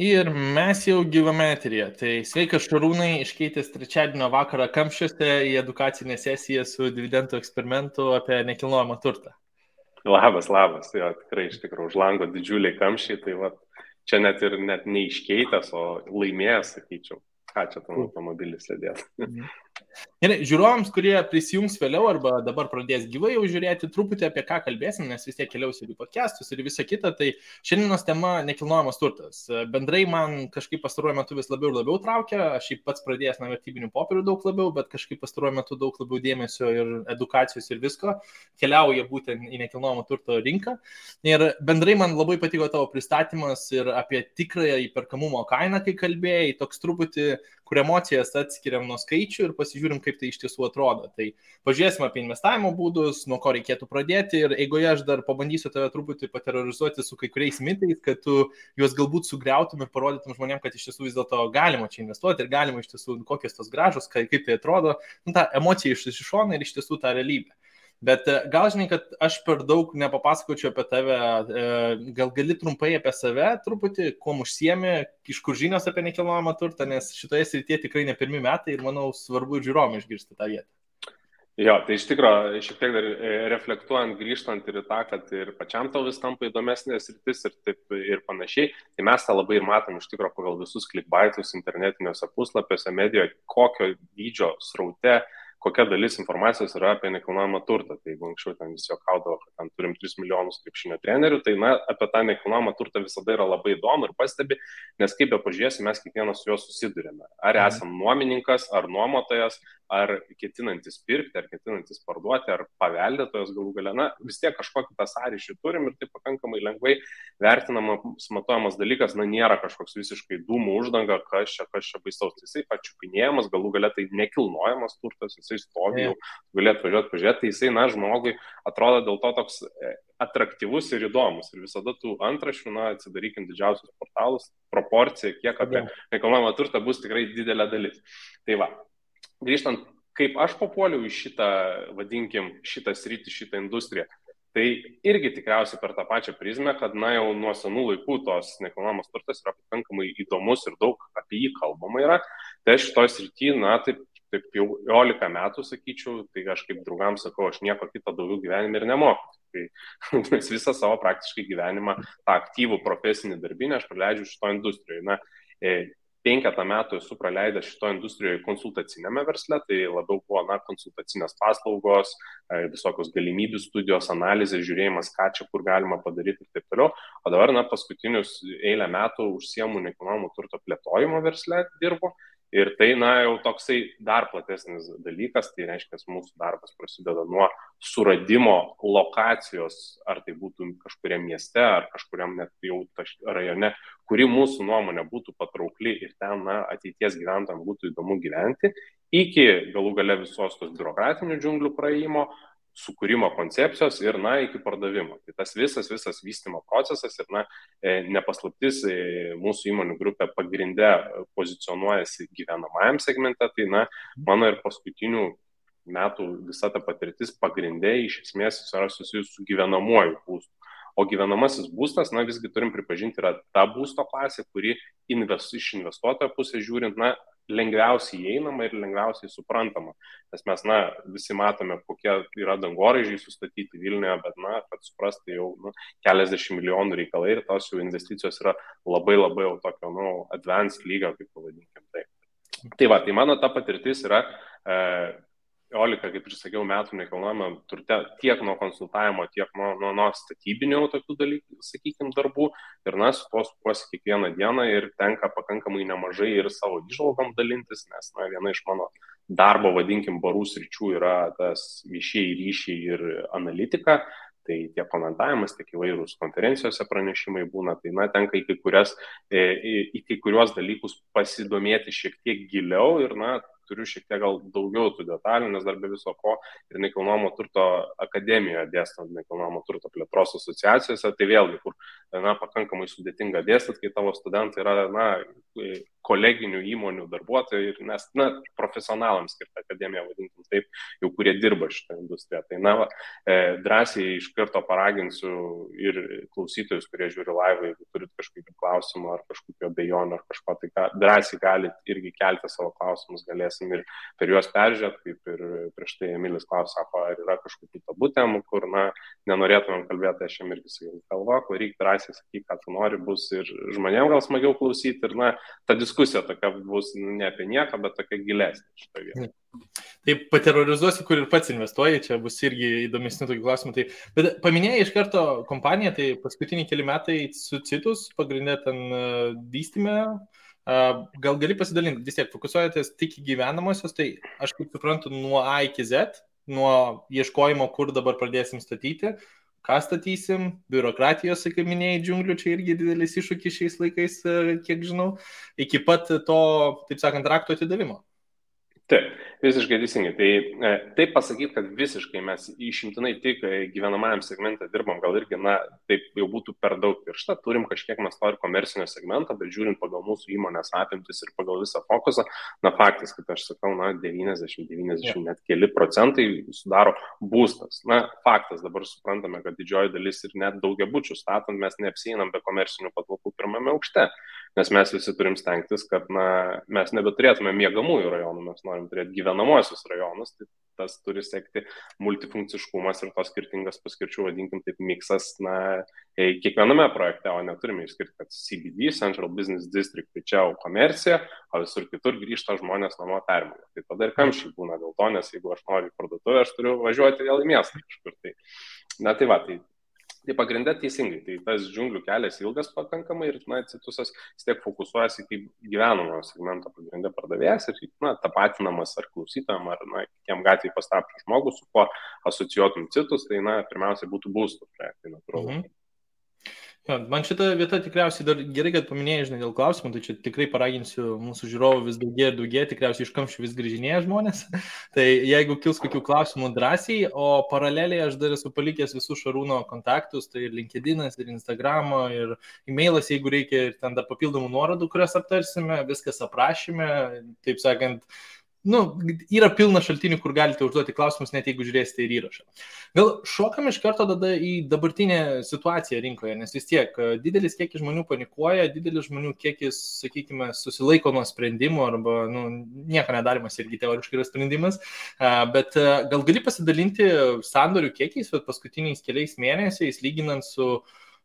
Ir mes jau gyvame eteryje. Tai sveikas Šarūnai, iškeitęs trečiadienio vakarą Kamščiuose į edukacinę sesiją su dividendų eksperimentu apie nekilnojamą turtą. Labas, jo, tikrai iš tikrųjų už lango didžiuliai kamščiai, tai va, čia net neiškeitęs, o laimėjęs, sakyčiau, ką čia tam automobilis sėdės. Gerai, žiūrovams, kurie prisijungs vėliau arba dabar pradės gyvai jau žiūrėti, truputį apie ką kalbėsim, nes vis tiek keliaus ir į podcastus ir visą kitą, tai šiandienos tema nekilnojamas turtas. Bendrai man kažkaip pastaruoju metu vis labiau ir labiau traukia, aš pats pradėjęs nuo vertybinių popierių daug labiau, bet kažkaip pastaruoju metu daug labiau dėmesio ir edukacijos ir visko keliauja būtent į nekilnojamo turto rinką. Ir bendrai man labai patiko tavo pristatymas ir apie tikrąją įperkamumo kainą, kai kalbėjai, toks truputį, kur emocijas atskiriam nuo skaičių ir pasižiūrim, kaip tai iš tiesų atrodo. Tai pažiūrėsim apie investavimo būdus, nuo ko reikėtų pradėti ir eigoje aš dar pabandysiu tave truputį paterorizuoti su kai kuriais mitais, kad tu juos galbūt sugriautum ir parodytum žmonėms, kad iš tiesų vis dėlto galima čia investuoti ir galima iš tiesų kokios tos gražos, kaip tai atrodo, ta emocija iš šono ir iš tiesų ta realybė. Bet gal žinai, kad aš per daug nepapasakočiau apie tave, gal gali trumpai apie save truputį, kuo užsiemi, iš kur žinios apie nekilnojamą turtą, nes šitoje srityje tikrai ne pirmi metai ir manau svarbu ir žiūrovam išgirsti tą vietą. Jo, tai iš tikrųjų, šiek tiek dar reflektuojant, grįžtant ir į tą, kad ir pačiam tau vis tampa įdomesnė sritis ir taip ir panašiai, tai mes tą labai ir matom iš tikrųjų pagal visus clickbaitus internetiniuose puslapiuose, medijoje, kokio dydžio sraute, kokia dalis informacijos yra apie nekilnojamą turtą. Tai jeigu anksčiau ten visi juokaudavo, kad ten turim 3 milijonus krepšinio trenerių, tai apie tą nekilnojamą turtą visada yra labai įdomu ir pastebi, nes kaip be pažiūrėsi, mes kiekvienas su juo susidurime. Ar esam nuomininkas, ar nuomotojas, ar ketinantis pirkti, ar ketinantis parduoti, ar paveldėtojas galų gale. Na, vis tiek kažkokį tą sąryšį turim ir tai pakankamai lengvai vertinamas, matuojamas dalykas, na, nėra kažkoks visiškai dūmų uždanga, kas čia baisaus. Jisai pačiupinėjamas, galų gale tai nekilnojamas turtas, jisai stovi jau, galėtų pažiūrėti, tai jisai, na, žmogui atrodo dėl to toks atraktyvus ir įdomus. Ir visada tų antraščių, na, atsidarykim didžiausius portalus, proporcija, kiek apie nekilnojamą turtą bus tikrai didelė dalis. Tai va, grįžtant, kaip aš papuoliau į šitą, vadinkim, šitą sritį, šitą industriją, tai irgi tikriausiai per tą pačią prizmę, kad, na, jau nuo senų laikų tos nekilnojamas turtas yra pakankamai įdomus ir daug apie jį kalbama yra. Tai aš šitoj srity, na, taip jau 11 metų, sakyčiau, tai aš kaip draugams sakau, aš nieko kito daugiau gyvenime ir nemoku. Tai mes visą savo praktiškai gyvenimą, tą aktyvų profesinį darbinę aš praleidžiu šito industrijoje. Na, 5 metų esu praleidęs šito industrijoje konsultacinėme versle, tai labiau buvo, na, konsultacinės paslaugos, visokios galimybių studijos, analizės, žiūrėjimas, ką čia kur galima padaryti ir taip toliau. O dabar, na, paskutinius eilę metų užsiemu nekilnojamo turto plėtojimo versle dirbu. Ir tai, na, jau toksai dar platesnis dalykas, tai reiškia, mūsų darbas prasideda nuo suradimo lokacijos, ar tai būtų kažkuriam mieste, ar kažkuriam net jau rajone, kuri mūsų nuomonė būtų patraukli ir ten, na, ateities gyventojams būtų įdomu gyventi, iki galų gale visos tos biurokratinių džiunglių praėjimo, sukūrimo koncepcijos ir, na, iki pardavimo. Tai tas visas vystymo procesas ir, na, nepaslaptis mūsų įmonių grupė pagrinde pozicionuojasi gyvenamajam segmente, tai, na, mano ir paskutinių metų visa ta patirtis pagrinde iš esmės yra susijusi su gyvenamuoju būstu. O gyvenamasis būstas, na, visgi turim pripažinti, yra ta būsto klasė, kuri iš investuotojo pusės žiūrint, na, lengviausiai įeinama ir lengviausiai suprantama. Nes mes, na, visi matome, kokie yra dangoraižiai sustatyti Vilniuje, bet, na, kad suprasti jau, nu, keliasdešimt milijonų reikalai ir tos jų investicijos yra labai jau tokio, nu, advanced lygio, kaip pavadinkim tai. Tai va, tai mano ta patirtis yra 11, kaip ir sakiau, metų nekilnojamą turte tiek nuo konsultavimo, tiek nuo statybinių tokių dalykų, sakykime, darbų. Ir, na, su to sukuosi kiekvieną dieną ir tenka pakankamai nemažai ir savo įžvalgom dalintis, nes, na, viena iš mano darbo, vadinkim, barų sričių yra tas viešieji ryšiai ir analitika. Tai tiek komentavimas, tiek įvairūs konferencijose pranešimai būna, tai, na, tenka į kai kuriuos dalykus pasidomėti šiek tiek giliau ir, na, turiu šiek tiek gal daugiau tų detalių, nes dar be viso ko ir nekilnojamo turto akademijoje dėstant nekilnojamo turto plėtros asociacijose, tai vėlgi, kur, na, pakankamai sudėtinga dėstyti, kai tavo studentai yra, na, koleginių įmonių darbuotojai, nes, profesionalams skirta akademija, vadinkim taip, jau kurie dirba šitą industriją. Tai, drąsiai iš karto paraginsiu ir klausytojus, kurie žiūri laivą, jeigu turit kažkokių klausimų ar kažkokių abejonių ar kažko, tai drąsiai galit irgi kelti savo klausimus, galėsim ir per juos peržiūrėti, kaip ir prieš tai Emilis klausė, sako, ar yra kažkokių tabų temų, kur, nenorėtumėm kalbėti, aš jam irgi sakiau, kalbok, varyk drąsiai, sakyk, ką tu nori, bus ir žmonėms gal smagiau klausyti, ir, ta diskusija tokia bus ne apie nieką, bet tokia gilesnė šitoje vietoje. Taip, paterrorizuosiu, kur ir pats investuoji, čia bus irgi įdomesnių tokių klausimų. Tai, bet paminėjai iš karto kompaniją, tai paskutiniai keli metai su Citus, pagrindė ten vystyme, gal gali pasidalinti, vis tiek fokusuojatės tik į gyvenamosios, tai aš kaip suprantu nuo A iki Z, nuo ieškojimo, kur dabar pradėsim statyti, ką statysim, biurokratijos, kaip minėjai, džiunglių, čia irgi didelis iššūkis šiais laikais, kiek žinau, iki pat to, taip sakant, rakto atidavimo. Taip, visiškai teisingai. Tai pasakyti, kad visiškai mes išimtinai tik gyvenamajam segmente dirbam, gal irgi, taip jau būtų per daug piršta, turim kažkiek mes to ir komercinio segmento, bet žiūrint pagal mūsų įmonės apimtis ir pagal visą fokusą, faktas, kad aš sakau, 90 net keli procentai sudaro būstas. Faktas, dabar suprantame, kad didžioji dalis ir net daugiabučių statant mes neapsieinam be komercinių patalpų pirmame aukšte, nes mes visi turim stengtis, kad mes nebeturėtume miegamųjų rajonų, mes norim turėti gyvenamosius rajonus, tai tas turi sekti multifunkciškumas ir tos skirtingas paskirčių, vadinkim taip, miksas kiekviename projekte, o neturime išskirti, kad CBD, Central Business District, tai čia jau komercija, o visur kitur grįžta žmonės namo permėlę. Tai tada ir kamščiai būna dėl to, nes jeigu aš noriu į parduotuvę, aš turiu važiuoti vėl į miestą kažkur. Tai pagrindė teisingai, tai tas džiunglių kelias ilgas pakankamai ir Citusas vis tiek fokusuojasi kaip gyvenamojo segmento pagrindė pardavėjas ir tapatinamas ar klausytojam, ar kitiem gatvėje pastatytų žmogų, su kuo asocijuotum Citus, tai pirmiausia būtų būstų projektai, natūralu. Man šita vieta tikriausiai dar gerai, kad paminėjai, žinai, dėl klausimų, tai čia tikrai paraginsiu mūsų žiūrovų vis daugiau, tikriausiai iš kamščių vis grįžinėja žmonės. Tai jeigu kils kokių klausimų drąsiai, o paraleliai aš dar esu palikęs visų Šarūno kontaktus, tai ir LinkedInas, ir Instagramo, ir e-mailas, jeigu reikia, ir ten dar papildomų nuorodų, kurias aptarsime, viskas aprašyme, taip sakant, yra pilna šaltinių, kur galite užduoti klausimus, net jeigu žiūrėsite ir įrašą. Gal šokam iš karto tada į dabartinę situaciją rinkoje, nes vis tiek didelis kiekis žmonių panikuoja, didelis žmonių kiekis, sakykime, susilaiko nuo sprendimų arba nieko nedarimas irgi teoriškai yra sprendimas, bet gal gali pasidalinti sandorių kiekiais paskutiniais keliais mėnesiais, lyginant su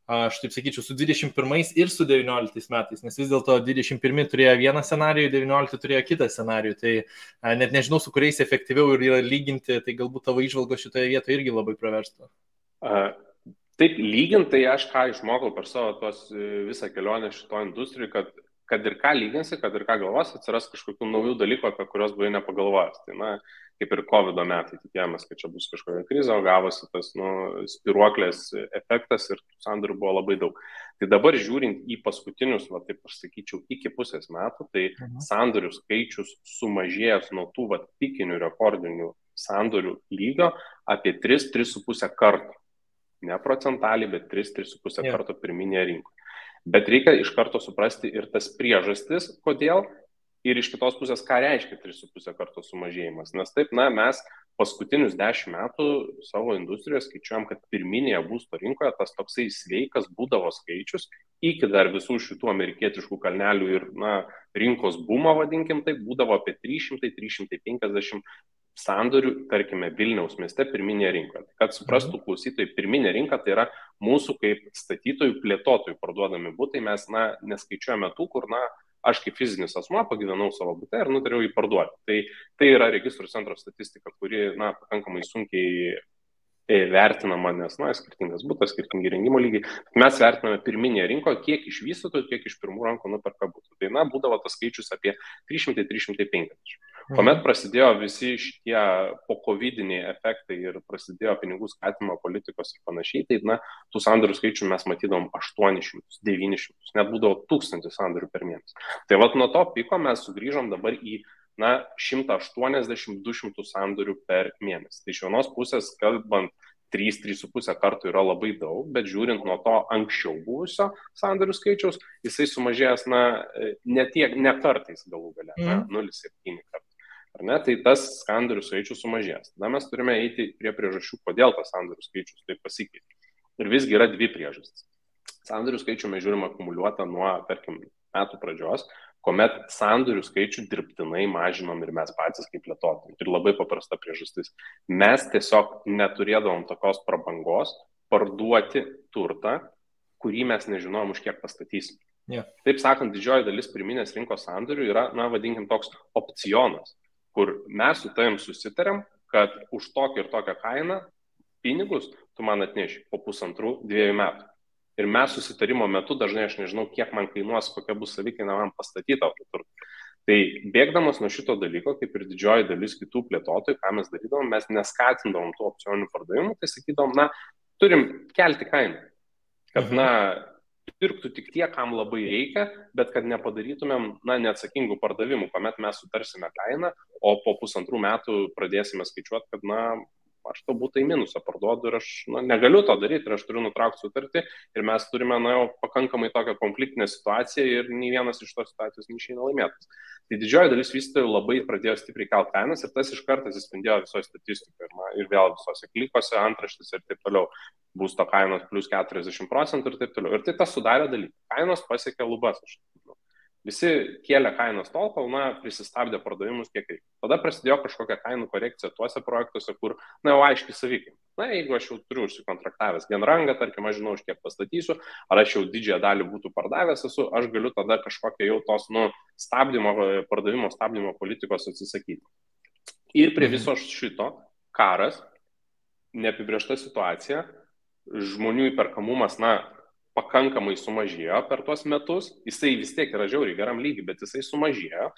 aš taip sakyčiau, su 21 ir su 19 metais, nes vis dėlto 21 turėjo vieną scenarijų, 19 turėjo kitą scenarijų, tai net nežinau, su kuriais efektyviau yra lyginti, tai galbūt tavo įžvalgos šitoje vietoje irgi labai praverstų. Taip, lyginti, tai aš ką išmokau per savo visą kelionę šito industrijų, kad ir ką lyginsi, kad ir ką galvos, atsiras kažkokių naujų dalykų, apie kurios buvai nepagalvojęs. Tai, kaip ir COVID metai, tikėjomės, kad čia bus kažkokia krizė, o gavosi tas spiruoklės efektas ir sandorių buvo labai daug. Tai dabar žiūrint į paskutinius, taip aš sakyčiau, iki pusės metų, tai sandorių skaičius sumažėjęs nuo tų pikinių rekordinių sandorių lygio apie 3-3,5 kartų. Ne procentaliai, bet 3-3,5 karto pirminėje rinkoje. Bet reikia iš karto suprasti ir tas priežastis, kodėl, ir iš kitos pusės, ką reiškia 3,5 karto sumažėjimas. Nes taip, mes paskutinius 10 metų savo industrijoje skaičiuojam, kad pirminėje būsto rinkoje tas toksai sveikas būdavo skaičius, iki dar visų šitų amerikietiškų kalnelių ir rinkos bumo, vadinkim taip, būdavo apie 300-350 sandorių, tarkime, Vilniaus mieste pirminėje rinkoje. Kad suprastų klausytojai, pirminė rinka tai yra mūsų kaip statytojų, plėtotojų parduodami butai, mes neskaičiuojame tų, kur aš kaip fizinis asmuo pagyvenau savo bute ir nutariau jį parduoti. Tai yra registrų centro statistika, kuri pakankamai sunkiai vertinama, nes skirtingas butas, skirtingi rengimo lygiai. Mes vertiname pirminėje rinkoje, kiek iš vystytojų, kiek iš pirmų rankų nuperka butų. Tai būdavo tas skaičius apie 300-350. Kuomet prasidėjo visi šitie po-covidiniai efektai ir prasidėjo pinigų skatimo politikos ir panašiai, tai tų sandorių skaičių mes matydavom 800, 900, net būdavo 1000 sandorių per mėnesį. Tai nuo to piko mes sugrįžom dabar į 180-200 sandorių per mėnesį. Tai iš vienos pusės, kalbant 3-3,5 kartų yra labai daug, bet žiūrint nuo to anksčiau buvusio sandorių skaičiaus, jisai sumažėjęs, ne kartais galų gale, 0,7 kartų. Ar ne? Tai tas sandorių skaičius sumažėjęs. Tada mes turime eiti prie priežasčių, kodėl tas sandorių skaičius taip pasikeitė. Ir visgi yra dvi priežastys. Sandorių skaičių mes žiūrime akumuliuotą nuo, tarkim, metų pradžios, kuomet sandorių skaičių dirbtinai mažinom ir mes patys kaip plėtotojai. Ir labai paprasta priežastis. Mes tiesiog neturėdavom tokios prabangos parduoti turtą, kurį mes nežinojom už kiek pastatysim. Yeah. Taip sakant, didžioji dalis pirminės rinkos sandorių yra, vadinkim, toks opcionas, kur mes su tavim susitarėm, kad už tokią ir tokią kainą pinigus tu man atneši po 1,5-2 metų. Ir mes susitarimo metu dažnai aš nežinau, kiek man kainuos, kokia bus savikaina man pastatyta turtą. Tai bėgdamas nuo šito dalyko, kaip ir didžioji dalis kitų plėtotojų, ką mes darydavom, mes neskatindavom tų opcioninių pardavimų, tai sakydavom, turim kelti kainą. Kad, pirktų tik tie, kam labai reikia, bet kad nepadarytumėm, neatsakingų pardavimų, kuomet mes sutarsime kainą, o po 1,5 metų pradėsime skaičiuoti, kad, aš to būtų į minusą parduodu ir aš negaliu to daryti ir aš turiu nutraukti sutartį ir mes turime jau pakankamai tokią konfliktinę situaciją ir nei vienas iš tos situacijos neišeina laimėtas. Tai didžioji dalis vystytojų labai pradėjo stipriai kelti kainas ir tas iš karto atsispindėjo visoje statistikoje ir vėl visose klikose, antraštėse ir taip toliau. Būsto kainos plus 40% ir taip toliau. Ir tai tas sudarė dalyką. Kainos pasiekė lubas. Visi kėlė kainos tol, kol prisistabdė pardavimus kiek reikia. Tada prasidėjo kažkokia kainų korekcija tuose projektuose, kur, jau aiškiai savikaina. Jeigu aš jau turiu užsikontraktavęs genrangą, tarkim, aš žinau, už kiek pastatysiu, ar aš jau didžiąją dalį būtų pardavęs esu, aš galiu tada kažkokią jau tos, pardavimo stabdymo politikos atsisakyti. Ir prie viso šito karas, neapibrėžta situacija, žmonių įperkamumas, pakankamai sumažėjo per tuos metus, jisai vis tiek yra žiauriai geram lygiai, bet jisai sumažėjo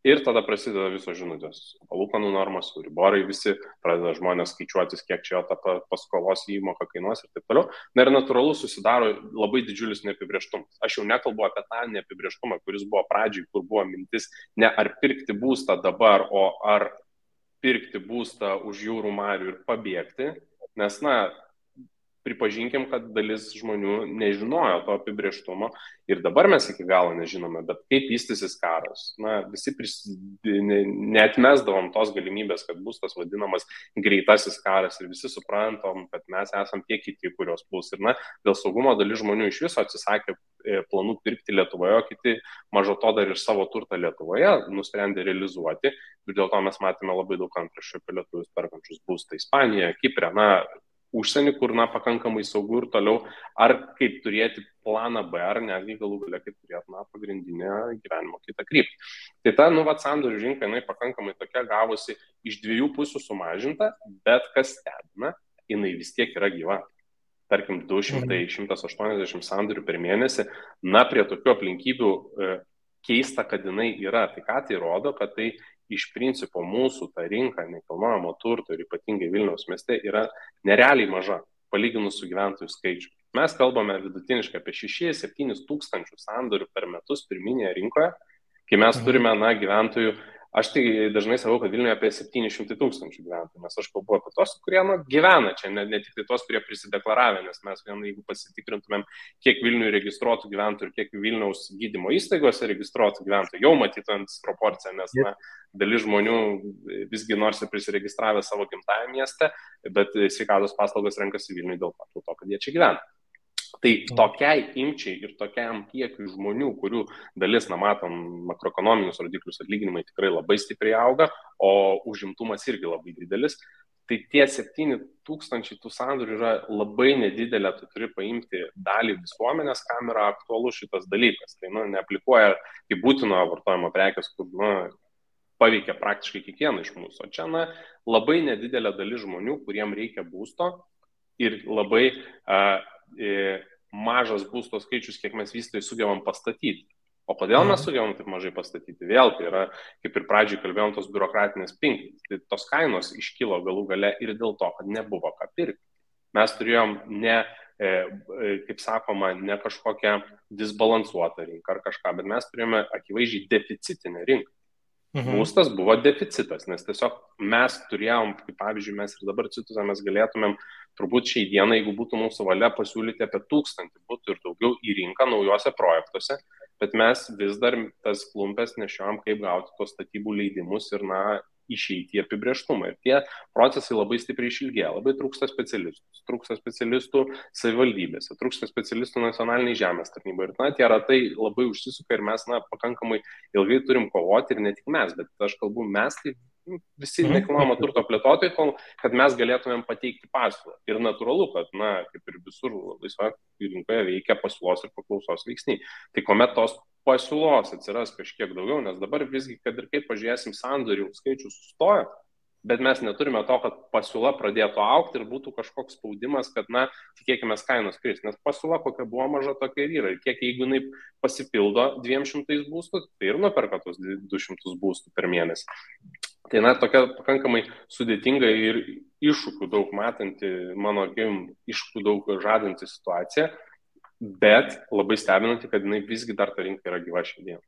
ir tada prasideda visos žinutės. Palūkanų normos, riborai visi, pradeda žmonės skaičiuotis, kiek čia ta paskolos įmoka kainuos ir taip toliau. Ir natūralu susidaro labai didžiulis neapibrėžtumas. Aš jau nekalbu apie tą neapibrėžtumą, kuris buvo pradžiai, kur buvo mintis ne ar pirkti būstą dabar, o ar pirkti būstą už jūrų marių ir pabėgti, nes, pripažinkim, kad dalis žmonių nežinojo to apibrėžtumo ir dabar mes iki galo nežinome, bet kaip vystysis karas. Visi neatmesdavom tos galimybės, kad bus tas vadinamas greitasis karas ir visi suprantam, kad mes esam tie kiti, kurios bus. Ir dėl saugumo dalis žmonių iš viso atsisakė planų pirkti Lietuvoje, o kiti mažo to dar ir savo turtą Lietuvoje nusprendė realizuoti. Ir dėl to mes matėme labai daug antraščių apie lietuvius perkančius būstą Ispanijoje, Kipre, užsienį, kur pakankamai saugu ir toliau, ar kaip turėti planą B, ar netgi galų galia kaip turėti pagrindinę gyvenimo kitą kryptį. Tai ta sandorių rinka, jinai pakankamai tokia gavosi iš dviejų pusių sumažinta, bet kas stebina, jinai vis tiek yra gyva. Tarkim, 200-180 sandorių per mėnesį, prie tokių aplinkybių keista, kad jinai yra. Tai ką tai rodo, kad tai iš principo mūsų ta rinka nekilnojamo turto ir ypatingai Vilniaus mieste yra nerealiai maža, palyginus su gyventojų skaičiu. Mes kalbame vidutiniškai apie 6-7 tūkstančių sandorių per metus pirminėje rinkoje, kai mes turime gyventojų, aš tai dažnai sakau, kad Vilniuje apie 700 tūkstančių gyventojų, nes aš kalbu apie tos, kurie gyvena čia, ne tik tai tos, kurie prisideklaravę, nes mes jeigu pasitikrintumėm, kiek Vilniuje registruotų gyventojų ir kiek Vilniaus gydymo įstaigose registruotų gyventojų, jau matytumėm proporciją, nes dalis žmonių visgi nors ir prisiregistravę savo gimtajame mieste, bet sveikatos paslaugos renkasi Vilniuje dėl to, kad jie čia gyvena. Tai tokiai imčiai ir tokiam kiekiui žmonių, kurių dalis, matom, makroekonominius rodiklius atlyginimai tikrai labai stipriai auga, o užimtumas irgi labai didelis, tai tie 7,000 tų sandorių yra labai nedidelė, tu turi paimti dalį visuomenės, kam yra aktualus šitas dalykas. Tai neaplikuoja kaip būtino vartojimo prekės, kur paveikia praktiškai kiekvieną iš mūsų. O čia labai nedidelė dalis žmonių, kuriem reikia būsto ir labai mažas būsto skaičius, kiek mes vystytojai sugebam pastatyti. O kodėl mes sugebam taip mažai pastatyti? Vėl tai yra, kaip ir pradžiai kalbėjom, tos biurokratinės pinklės. Tai tos kainos iškilo galų gale ir dėl to, kad nebuvo ką pirkti. Mes turėjom kaip sakoma, ne kažkokią disbalansuotą rinką ar kažką, bet mes turėjome akivaizdžiai deficitinę rinką. Būstas buvo deficitas, nes tiesiog mes turėjom, kaip pavyzdžiui, mes ir dabar Cituzą mes galėtumėm turbūt šiai dienai, jeigu būtų mūsų valia, pasiūlyti apie 1000 būtų ir daugiau į rinką naujose projektuose, bet mes vis dar tas klumpes nešiojam, kaip gauti tos statybų leidimus ir, išeiti į apibrėžtumą. Ir tie procesai labai stipriai išilgėja, labai trūksta specialistų savivaldybėse, trūksta specialistų nacionaliniai žemės tarnybai. Ir tie ratai labai užsisuka ir mes pakankamai ilgai turim kovoti ir ne tik mes, bet aš kalbu mes, tai visi nekilnojamo turto plėtotojai, kad mes galėtumėm pateikti pasiūlą. Ir natūralu, kad, kaip ir visur laisvoje rinkoje veikia pasiūlos ir paklausos veiksniai. Tai kuomet tos pasiūlos atsiras kažkiek daugiau, nes dabar visgi, kad ir kaip pažiūrėsim, sandorių skaičius sustoja, bet mes neturime to, kad pasiūla pradėtų augti ir būtų kažkoks spaudimas, kad, tikėkime, kainos kris, nes pasiūla kokia buvo maža, tokia ir yra. Ir kiek jeigu jinai pasipildo 200 būstų, tai ir nuperka tos 200 būstų per mėnesį. Tai, tokia pakankamai sudėtinga ir iššūkių daug matanti, mano akim, iššūkių daug žadanti situacija, bet labai stebinanti, kad jinai visgi dar ta rinka yra gyva šiandien.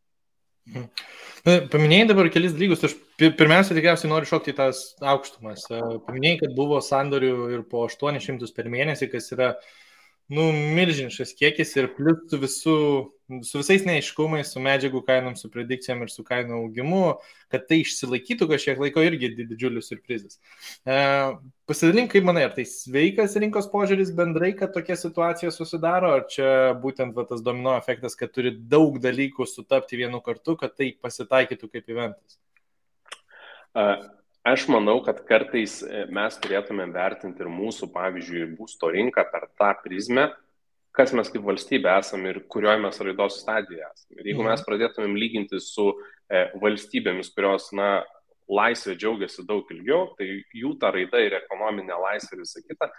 Paminėjai dabar kelis dalykus, aš pirmiausia tikriausiai noriu šokti į tas aukštumas. Paminėjai, kad buvo sandorių ir po 800 per mėnesį, kas yra milžiniškas kiekis ir plius su visais neaiškumais, su medžiagų kainom, su predikcijom ir su kainų augimu, kad tai išsilaikytų kažkiek laiko irgi didžiulis surprizas. Pasidalink, kaip manai, ar tai sveikas rinkos požiūris bendrai, kad tokia situacija susidaro, ar čia būtent tas domino efektas, kad turi daug dalykų sutapti vienu kartu, kad tai pasitaikytų kaip eventas? Aš manau, kad kartais mes turėtume vertinti ir mūsų, pavyzdžiui, būsto rinką per tą prizmę, kas mes kaip valstybė esame ir kurioje mes raidos stadijoje esame. Ir jeigu mes pradėtumėm lyginti su valstybėmis, kurios, laisvė džiaugiasi daug ilgiau, tai jų ta raida ir ekonominė laisvė ir visa kita,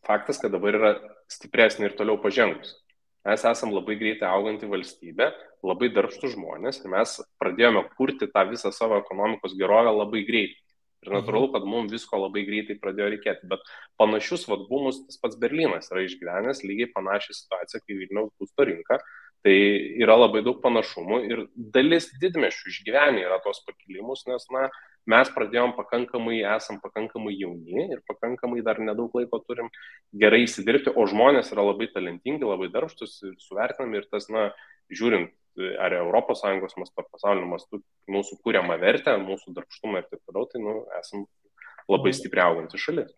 faktas, kad dabar yra stipresnė ir toliau pažengus. Mes esam labai greitai auganti valstybė, labai darbštų žmonės ir mes pradėjome kurti tą visą savo ekonomikos gerovę labai greitai. Ir natūralu, kad mums visko labai greitai pradėjo reikėti, bet panašius bumus tas pats Berlynas yra išgyvenęs, lygiai panašią situaciją kaip Vilniaus būsto rinka. Tai yra labai daug panašumų ir dalis didmiesčių išgyvenę yra tos pakilimus, nes mes pradėjom esam pakankamai jauni ir pakankamai dar nedaug laiko turim gerai įsidirbti, o žmonės yra labai talentingi, labai darbštus ir suvertinami ir tas, žiūrint ar ES mastu, ar pasaulio mastu, mūsų kūriamą vertę, mūsų darbštumą ir taip toliau, tai esam labai stipriai auganti šalis.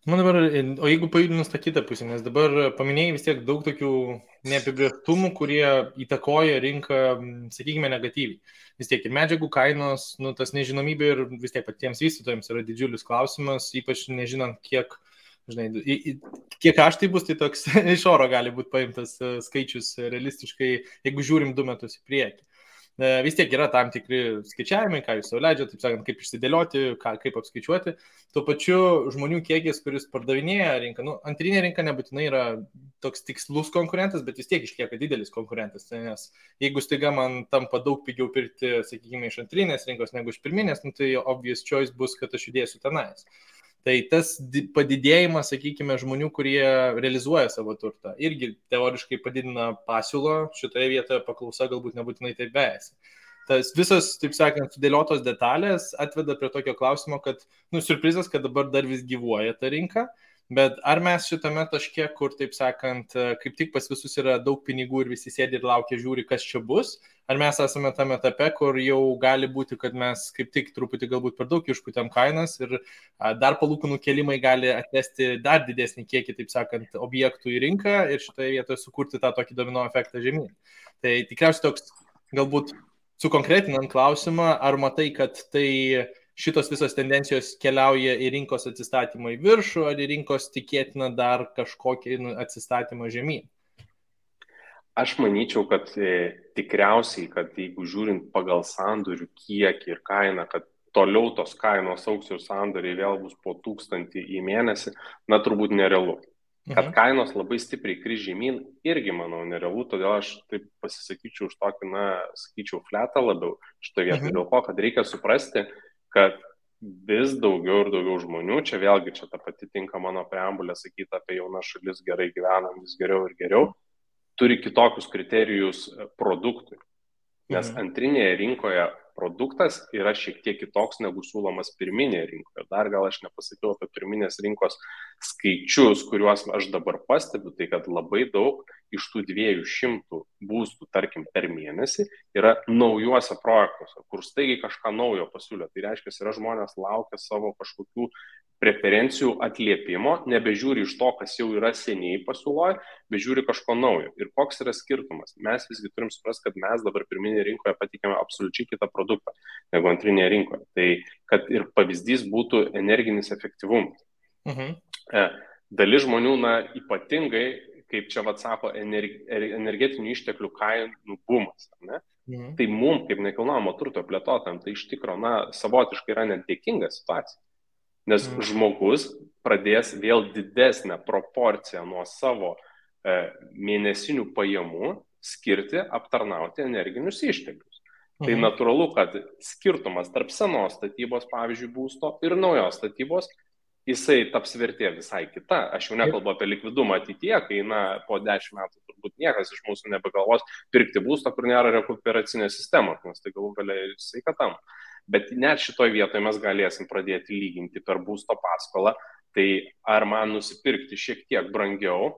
O jeigu pajudinus tą kitą pusę, nes dabar paminėjai vis tiek daug tokių neapibrėžtumų, kurie įtakoja rinką, sakykime, negatyviai. Vis tiek ir medžiagų kainos, tas nežinomybė ir vis tiek patiems vystytojams yra didžiulis klausimas, ypač nežinant, kiek kaštai bus, tai toks iš oro gali būti paimtas skaičius realistiškai, jeigu žiūrim 2 metus į priekį. Vis tiek yra tam tikri skaičiavimai, ką jūs sau leidžia, taip sakant, kaip išsidėlioti, kaip apskaičiuoti. Tuo pačiu žmonių kiekis, kuris pardavinėja rinką, antrinė rinka nebūtinai yra toks tikslus konkurentas, bet vis tiek išlieka didelis konkurentas, nes jeigu staiga man tampa daug pigiau pirkti, sakykime, iš antrinės rinkos negu iš pirminės, tai obvious choice bus, kad aš judėsiu tenais. Tai tas padidėjimas, sakykime, žmonių, kurie realizuoja savo turtą, irgi teoriškai padidina pasiūlą, šitoje vietoje paklausa galbūt nebūtinai taip vejasi. Tas visas, taip sakant, sudėliotos detalės atveda prie tokio klausimo, kad, surprizas, kad dabar dar vis gyvuoja ta rinka, bet ar mes šitame taške, kur, taip sakant, kaip tik pas visus yra daug pinigų ir visi sėdi ir laukia, žiūri, kas čia bus, ar mes esame tame etape, kur jau gali būti, kad mes kaip tik truputį galbūt per daug išpūtėm kainas ir dar palūkanų kėlimai gali atvesti dar didesnį kiekį, taip sakant, objektų į rinką ir šitoje vietoje sukurti tą tokį domino efektą žemyn. Tai tikriausiai toks, galbūt sukonkretinant klausimą, ar matai, kad tai šitos visos tendencijos keliauja į rinkos atsistatymą į viršų, ar į rinkos tikėtina dar kažkokį atsistatymą žemyn? Aš manyčiau, kad tikriausiai, kad jeigu žiūrint pagal sandorių kiekį ir kainą, kad toliau tos kainos augs ir sandoriai vėl bus po 1000 į mėnesį, turbūt nerealu. Kad kainos labai stipriai kris žemyn, irgi, manau, nerealu, todėl aš taip pasisakyčiau už tokį, sakyčiau, fletą labiau šitoje vietoje, dėl ko, kad reikia suprasti, kad vis daugiau ir daugiau žmonių, čia vėlgi čia ta pati tinka mano preambulė sakyti apie jaunas šalis, gerai gyvenam, vis geriau ir geriau, turi kitokius kriterijus produktui. Nes antrinėje rinkoje produktas yra šiek tiek kitoks negu siūlomas pirminėje rinkoje. Dar gal aš nepasakiau apie pirminės rinkos skaičius, kuriuos aš dabar pastebiu, tai kad labai daug iš tų 200 būstų, tarkim, per mėnesį yra naujuose projektuose, kur staigiai kažką naujo pasiūlė. Tai reiškia, yra žmonės laukia savo kažkokių preferencijų atliepimo, nebežiūri iš to, kas jau yra seniai pasiūloje, bet žiūri kažko naujo. Ir koks yra skirtumas? Mes visgi turim suprasti, kad mes dabar pirminėje rinkoje patikėme absoliučiai kitą produktą negu antrinėje rinkoje. Tai kad ir pavyzdys būtų energinis efektyvumas. Dalis žmonių, ypatingai, kaip čia sako, energetinių išteklių kainų bumas. Ne? Tai mums, kaip nekilnojamo turto plėtotojams, tai iš tikro, savotiškai yra nedėkinga situacija. Nes žmogus pradės vėl didesnę proporciją nuo savo mėnesinių pajamų skirti aptarnauti energinius išteklius. Tai natūralu, kad skirtumas tarp senos statybos, pavyzdžiui, būsto ir naujos statybos, jisai taps vertė visai kita. Aš jau nekalbu apie likvidumą ateityje, kai po 10 metų turbūt niekas iš mūsų nebegalvos pirkti būsto, kur nėra rekuperacinės sistemos, nes tai galų galia ir sveikatam. Bet net šitoj vietoje mes galėsim pradėti lyginti per būsto paskolą, tai ar man nusipirkti šiek tiek brangiau,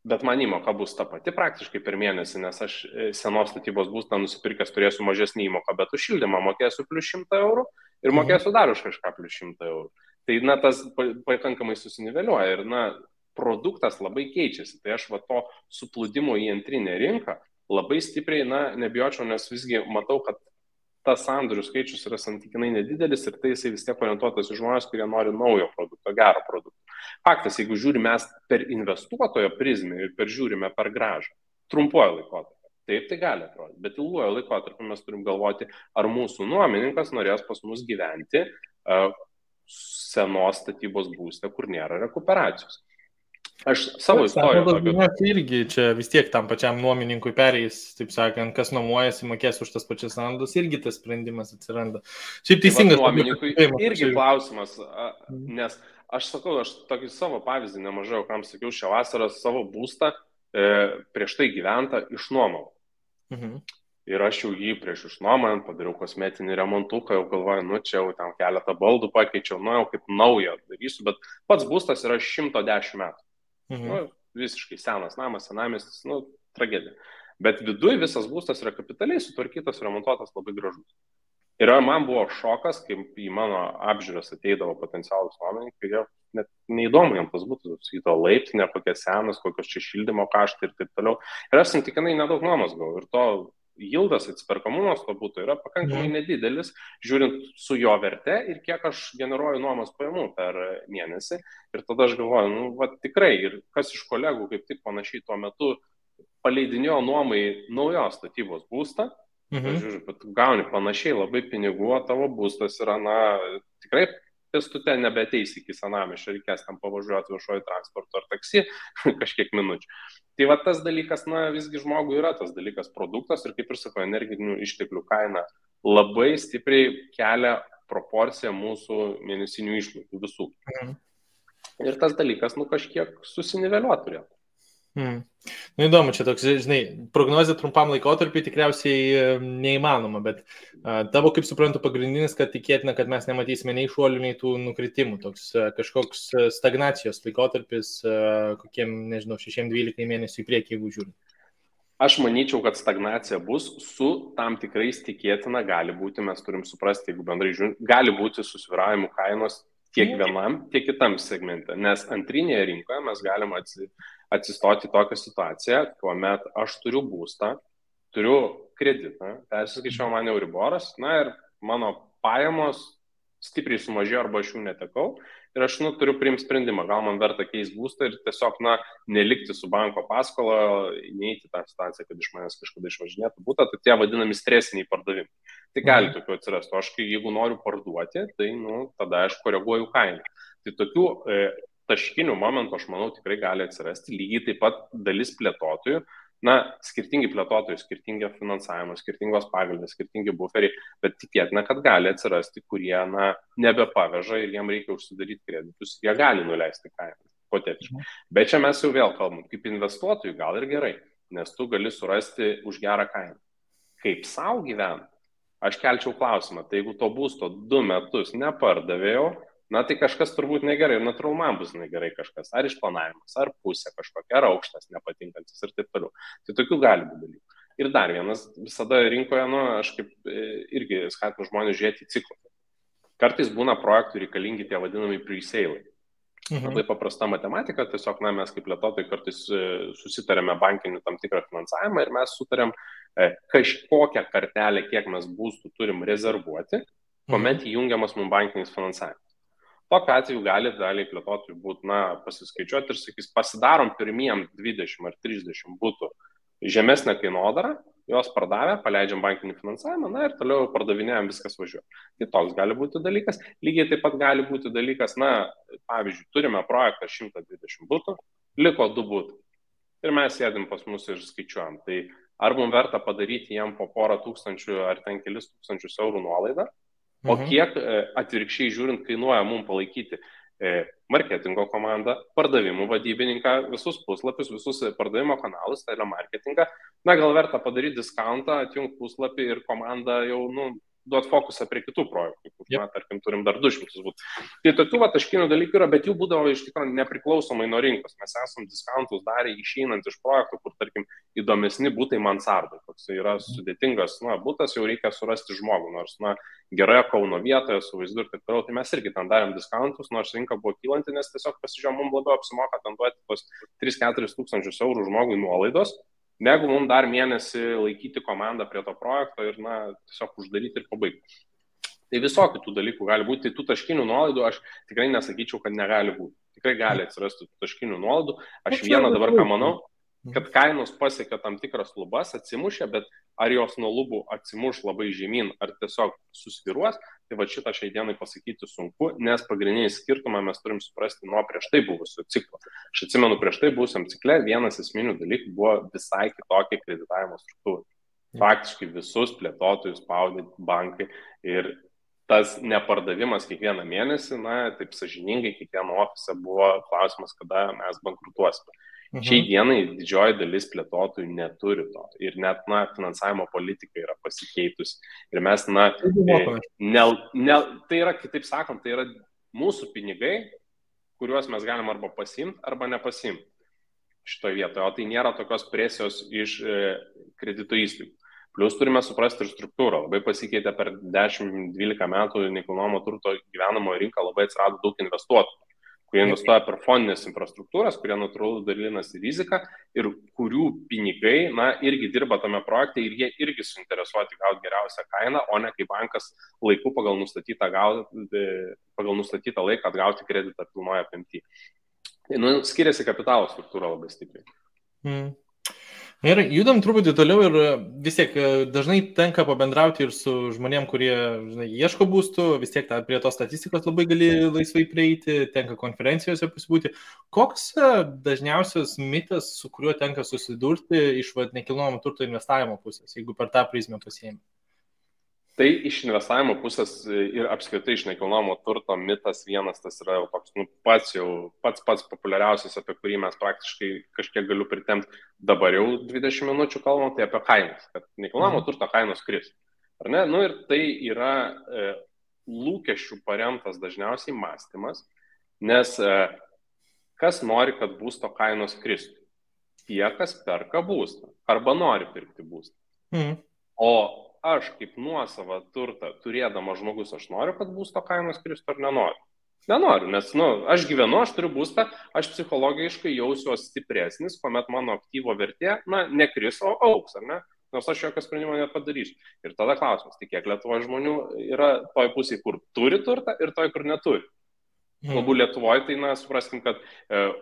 bet man įmoka bus ta pati praktiškai per mėnesį, nes aš senos statybos būstą nusipirkęs turėsiu mažesnį įmoką, bet už šildymą mokėsiu plus 100 eurų ir mokėsiu dar už kažką plus 100 eurų. Tai tas pakankamai susiniveliuoja ir produktas labai keičiasi. Tai aš to suplūdimo į antrinę rinką labai stipriai, nebijočiau, nes visgi matau, kad tas sandorių skaičius yra santykinai nedidelis ir tai jisai vis tiek orientuotas į žmonės, kurie nori naujo produkto, gero produkto. Faktas, jeigu žiūrime mes per investuotojo prizmę ir žiūrime per grąžą, trumpuoju laikotarpiu, taip tai gali atrodyti, bet ilguoju laikotarpiu mes turim galvoti, ar mūsų nuomininkas norės pas mus gyventi senos statybos būste, kur nėra rekuperacijos. Aš savo istoriją. Irgi čia vis tiek tam pačiam nuomininkui perėjus, taip sakant, kas nuomojasi, mokės už tas pačias sandus, irgi tas sprendimas atsiranda. Šiaip teisingas. Nuomininkui irgi klausimas, nes aš sakau, aš tokį savo pavyzdį nemažai, kam sakiau, šią vasarą savo būstą prieš tai gyventą išnuomau. Ir aš jau jį prieš išnuomant padariau kosmetinį remontuką, jau galvoju, čia jau ten keletą baldų pakeičiau, jau kaip naują darysiu, bet pats būstas yra 110 metų. Visiškai senas namas, senamiestis, tragedija. Bet viduj visas būstas yra kapitaliai sutvarkytas, remontuotas, labai gražus. Ir man buvo šokas, kai į mano apžiūras ateidavo potencialus nuomininkai, jie net neįdomu jam tas būtų, sakyto laiptinė, kokia senas, kokios čia šildymo kaštai ir taip toliau. Ir aš santykinai nedaug nuomos gavau ir to jildas, atsiperkamumas to būtų yra pakankamai nedidelis, žiūrint su jo verte ir kiek aš generuoju nuomos pajamų per mėnesį. Ir tada aš galvoju, tikrai, ir kas iš kolegų kaip tik panašiai tuo metu paleidinėjo nuomai naujos statybos būstą, žiūrėjau, bet gauni panašiai labai pinigų, o tavo būstas yra, tikrai pėstute nebeteis iki senamiesčio, reikės tam pavažiuoti viešojo transporto ar taksi kažkiek minučių. Tai tas dalykas, visgi žmogui yra tas dalykas produktas ir kaip ir sako, energinių išteklių kaina labai stipriai kelia proporciją mūsų mėnesinių išlaidų visų. Ir tas dalykas, kažkiek susiniveliuoti turėtų. Įdomu, čia toks, prognozė trumpam laikotarpiu tikriausiai neįmanoma, bet tavo, kaip suprantu, pagrindinis, kad tikėtina, kad mes nematysime nei šuolių, nei tų nukritimų, toks kažkoks stagnacijos laikotarpis, kokiem, 6-12 mėnesių į priekį, jeigu žiūrint. Aš manyčiau, kad stagnacija bus su tam tikrais tikėtina, gali būti, mes turim suprasti, jeigu bendrai žiūrint, gali būti susvyravimų kainos tiek vienam, tiek kitam segmente, nes antrinėje rinkoje mes galime atsistoti tokią situaciją, kuomet aš turiu būstą, turiu kreditą, persiskaičiau man Euriboras, ir mano pajamos stipriai sumažėjo arba aš jų netekau ir aš turiu priimti sprendimą, gal man verta keisti būstą ir tiesiog nelikti su banko paskola, neįti tą situaciją, kad iš manęs kažkada išvažinėtų būtą, tai tie vadinami stresiniai pardavimai. Tai gali tokių atsirasti, o aš jeigu noriu parduoti, tai tada aš koreguoju kainą. Tai tokių taškinių momentų, aš manau, tikrai gali atsirasti. Lygiai taip pat dalis plėtotojų, skirtingi plėtotojai, skirtingi finansavimo, skirtingos pagalbės, skirtingi buferiai, bet tikėtina, kad gali atsirasti, kurie nebepaveža ir jiem reikia užsidaryti kreditus, jie gali nuleisti kainą, hipotetiškai. Bet čia mes jau vėl kalbam, kaip investuotojų gal ir gerai, nes tu gali surasti už gerą kainą. Kaip savo gyventi, aš kelčiau klausimą, tai jeigu to būsto 2 metus nepardavėjau, na tai kažkas turbūt negerai ir natūralu man bus negerai kažkas, ar išplanavimas, ar pusė kažkokia, ar aukštas nepatinkantis ir taip toliau. Tai tokių gali būti dalykų. Ir dar vienas, visada rinkoje, aš kaip irgi skatinu žmonės žiūrėti į ciklą. Kartais būna projektų reikalingi tie vadinami pre-sale. Labai paprasta matematika, tiesiog mes kaip plėtotojai kartais susitarėme bankinių tam tikrą finansavimą ir mes sutarėm kažkokią kartelę, kiek mes būstų turim rezervuoti, kuomet įjungiamas mums bankinis finansavimas. Tokiu atveju gali daliai plėtotojų būti, pasiskaičiuoti ir sakys, pasidarom pirmiem 20 ar 30 būtų žemesnę kainodarą, jos pardavę, paleidžiam bankinį finansavimą, ir toliau pardavinėjam, viskas važiuoja. Tai toks gali būti dalykas. Lygiai taip pat gali būti dalykas, pavyzdžiui, turime projektą 120 būtų, liko 2 būtų. Ir mes sėdim pas mus ir skaičiuojam. Tai ar mums verta padaryti jam po porą tūkstančių ar ten kelis tūkstančius eurų nuolaidą, o kiek atvirkščiai žiūrint kainuoja mums palaikyti marketingo komandą, pardavimų vadybininką, visus puslapius, visus pardavimo kanalus, telemarketingą. Gal verta padaryti diskountą, atjungti puslapį ir komandą jau, duoti fokusą prie kitų projektų, kur, tarkim, turim dar 200 būtų. Tai tokių taškinių dalykų yra, bet jų būdavo iš tikrųjų nepriklausomai nuo rinkos. Mes esam discountus darę išeinant iš projektų, kur, tarkim, įdomesni būtai mansardai. Toks yra sudėtingas, būtas jau reikia surasti žmogų, nors, geroje Kauno vietoje, su vaizdu ir taip toliau. Tai mes irgi ten darėm discountus, nors rinka buvo kylanti, nes tiesiog pasižiūrėjom, mums labiau apsimoka ten duoti tos 3-4 tūkstančius eurų žmogui nuolaidos, negu mums dar mėnesį laikyti komandą prie to projekto ir, tiesiog uždaryti ir pabaigti. Tai visokių tų dalykų gali būti. Tai tų taškinių nuolaidų aš tikrai nesakyčiau, kad negali būti. Tikrai gali atsirasti tų taškinių nuolaidų. Aš vieną dabar ką manau, kad kainos pasiekia tam tikras lubas, atsimušia, bet ar jos nuo lubų atsimuš labai žemyn, ar tiesiog susviruos, tai šitą šiai dienai pasakyti sunku, nes pagrindinį skirtumą mes turim suprasti nuo prieš tai buvusio ciklo. Aš atsimenu, prieš tai buvusiam cikle vienas esminių dalykų buvo visai kitokia kreditavimo struktūra. Faktiškai visus plėtotojus spaudė bankai ir tas nepardavimas kiekvieną mėnesį, taip sąžiningai kiekvieno ofise buvo klausimas, kada mes bankrutuosime. Šiai dienai didžioji dalis plėtotojų neturi to ir net finansavimo politika yra pasikeitusi. Ir mes, tai yra, kitaip sakant, tai yra mūsų pinigai, kuriuos mes galim arba pasimti, arba nepasimti šitoje vietoje. O tai nėra tokios presijos iš kredito įstaigų. Plius turime suprasti ir struktūrą. Labai pasikeitė per 10-12 metų nekilnojamo turto gyvenamojo rinką, labai atsirado daug investuotojų, kurie investuoja per fondinės infrastruktūras, kurie natūralu dalinasi riziką ir kurių pinigai, irgi dirba tame projekte ir jie irgi suinteresuoti gauti geriausią kainą, o ne kaip bankas laiku pagal nustatytą laiką atgauti kreditą pilnoje apimtyje. Skiriasi kapitalo struktūra labai stipriai. Ir judam truputį toliau ir vis tiek dažnai tenka pabendrauti ir su žmonėm, kurie ieško būstų, vis tiek prie tos statistikos labai gali laisvai prieiti, tenka konferencijose pasibūti. Koks dažniausias mitas, su kuriuo tenka susidurti iš nekilnojamo turto investavimo pusės, jeigu per tą prizmę pasiėmė? Tai iš investavimo pusės ir apskritai iš nekilnojamo turto mitas vienas, tas yra toks, pats populiariausias, apie kurį mes praktiškai kažkiek galiu pritemti dabar jau 20 minučių kalbam, tai apie kainas, kad nekilnojamo turto kainos kris. Ar ne? Ir tai yra lūkesčių paremtas dažniausiai mąstymas, nes kas nori, kad būsto kainos kristų? Tie, kas perka būstą arba nori pirkti būstą. O aš kaip nuosavą turtą turėdama žmogus, aš noriu, kad būsto kainos kristų ar nenoriu? Nenoriu, nes aš gyvenu, aš turiu būstą, aš psichologiškai jausiuosi stipresnis, kuomet mano aktyvo vertė, nekris, o augs, ar ne? Nors aš jokio sprendimo nepadarysiu. Ir tada klausimas, tai kiek Lietuvoje žmonių yra toj pusėje, kur turi turtą ir toj, kur neturi. Galbūt Lietuvoje, tai supraskim, kad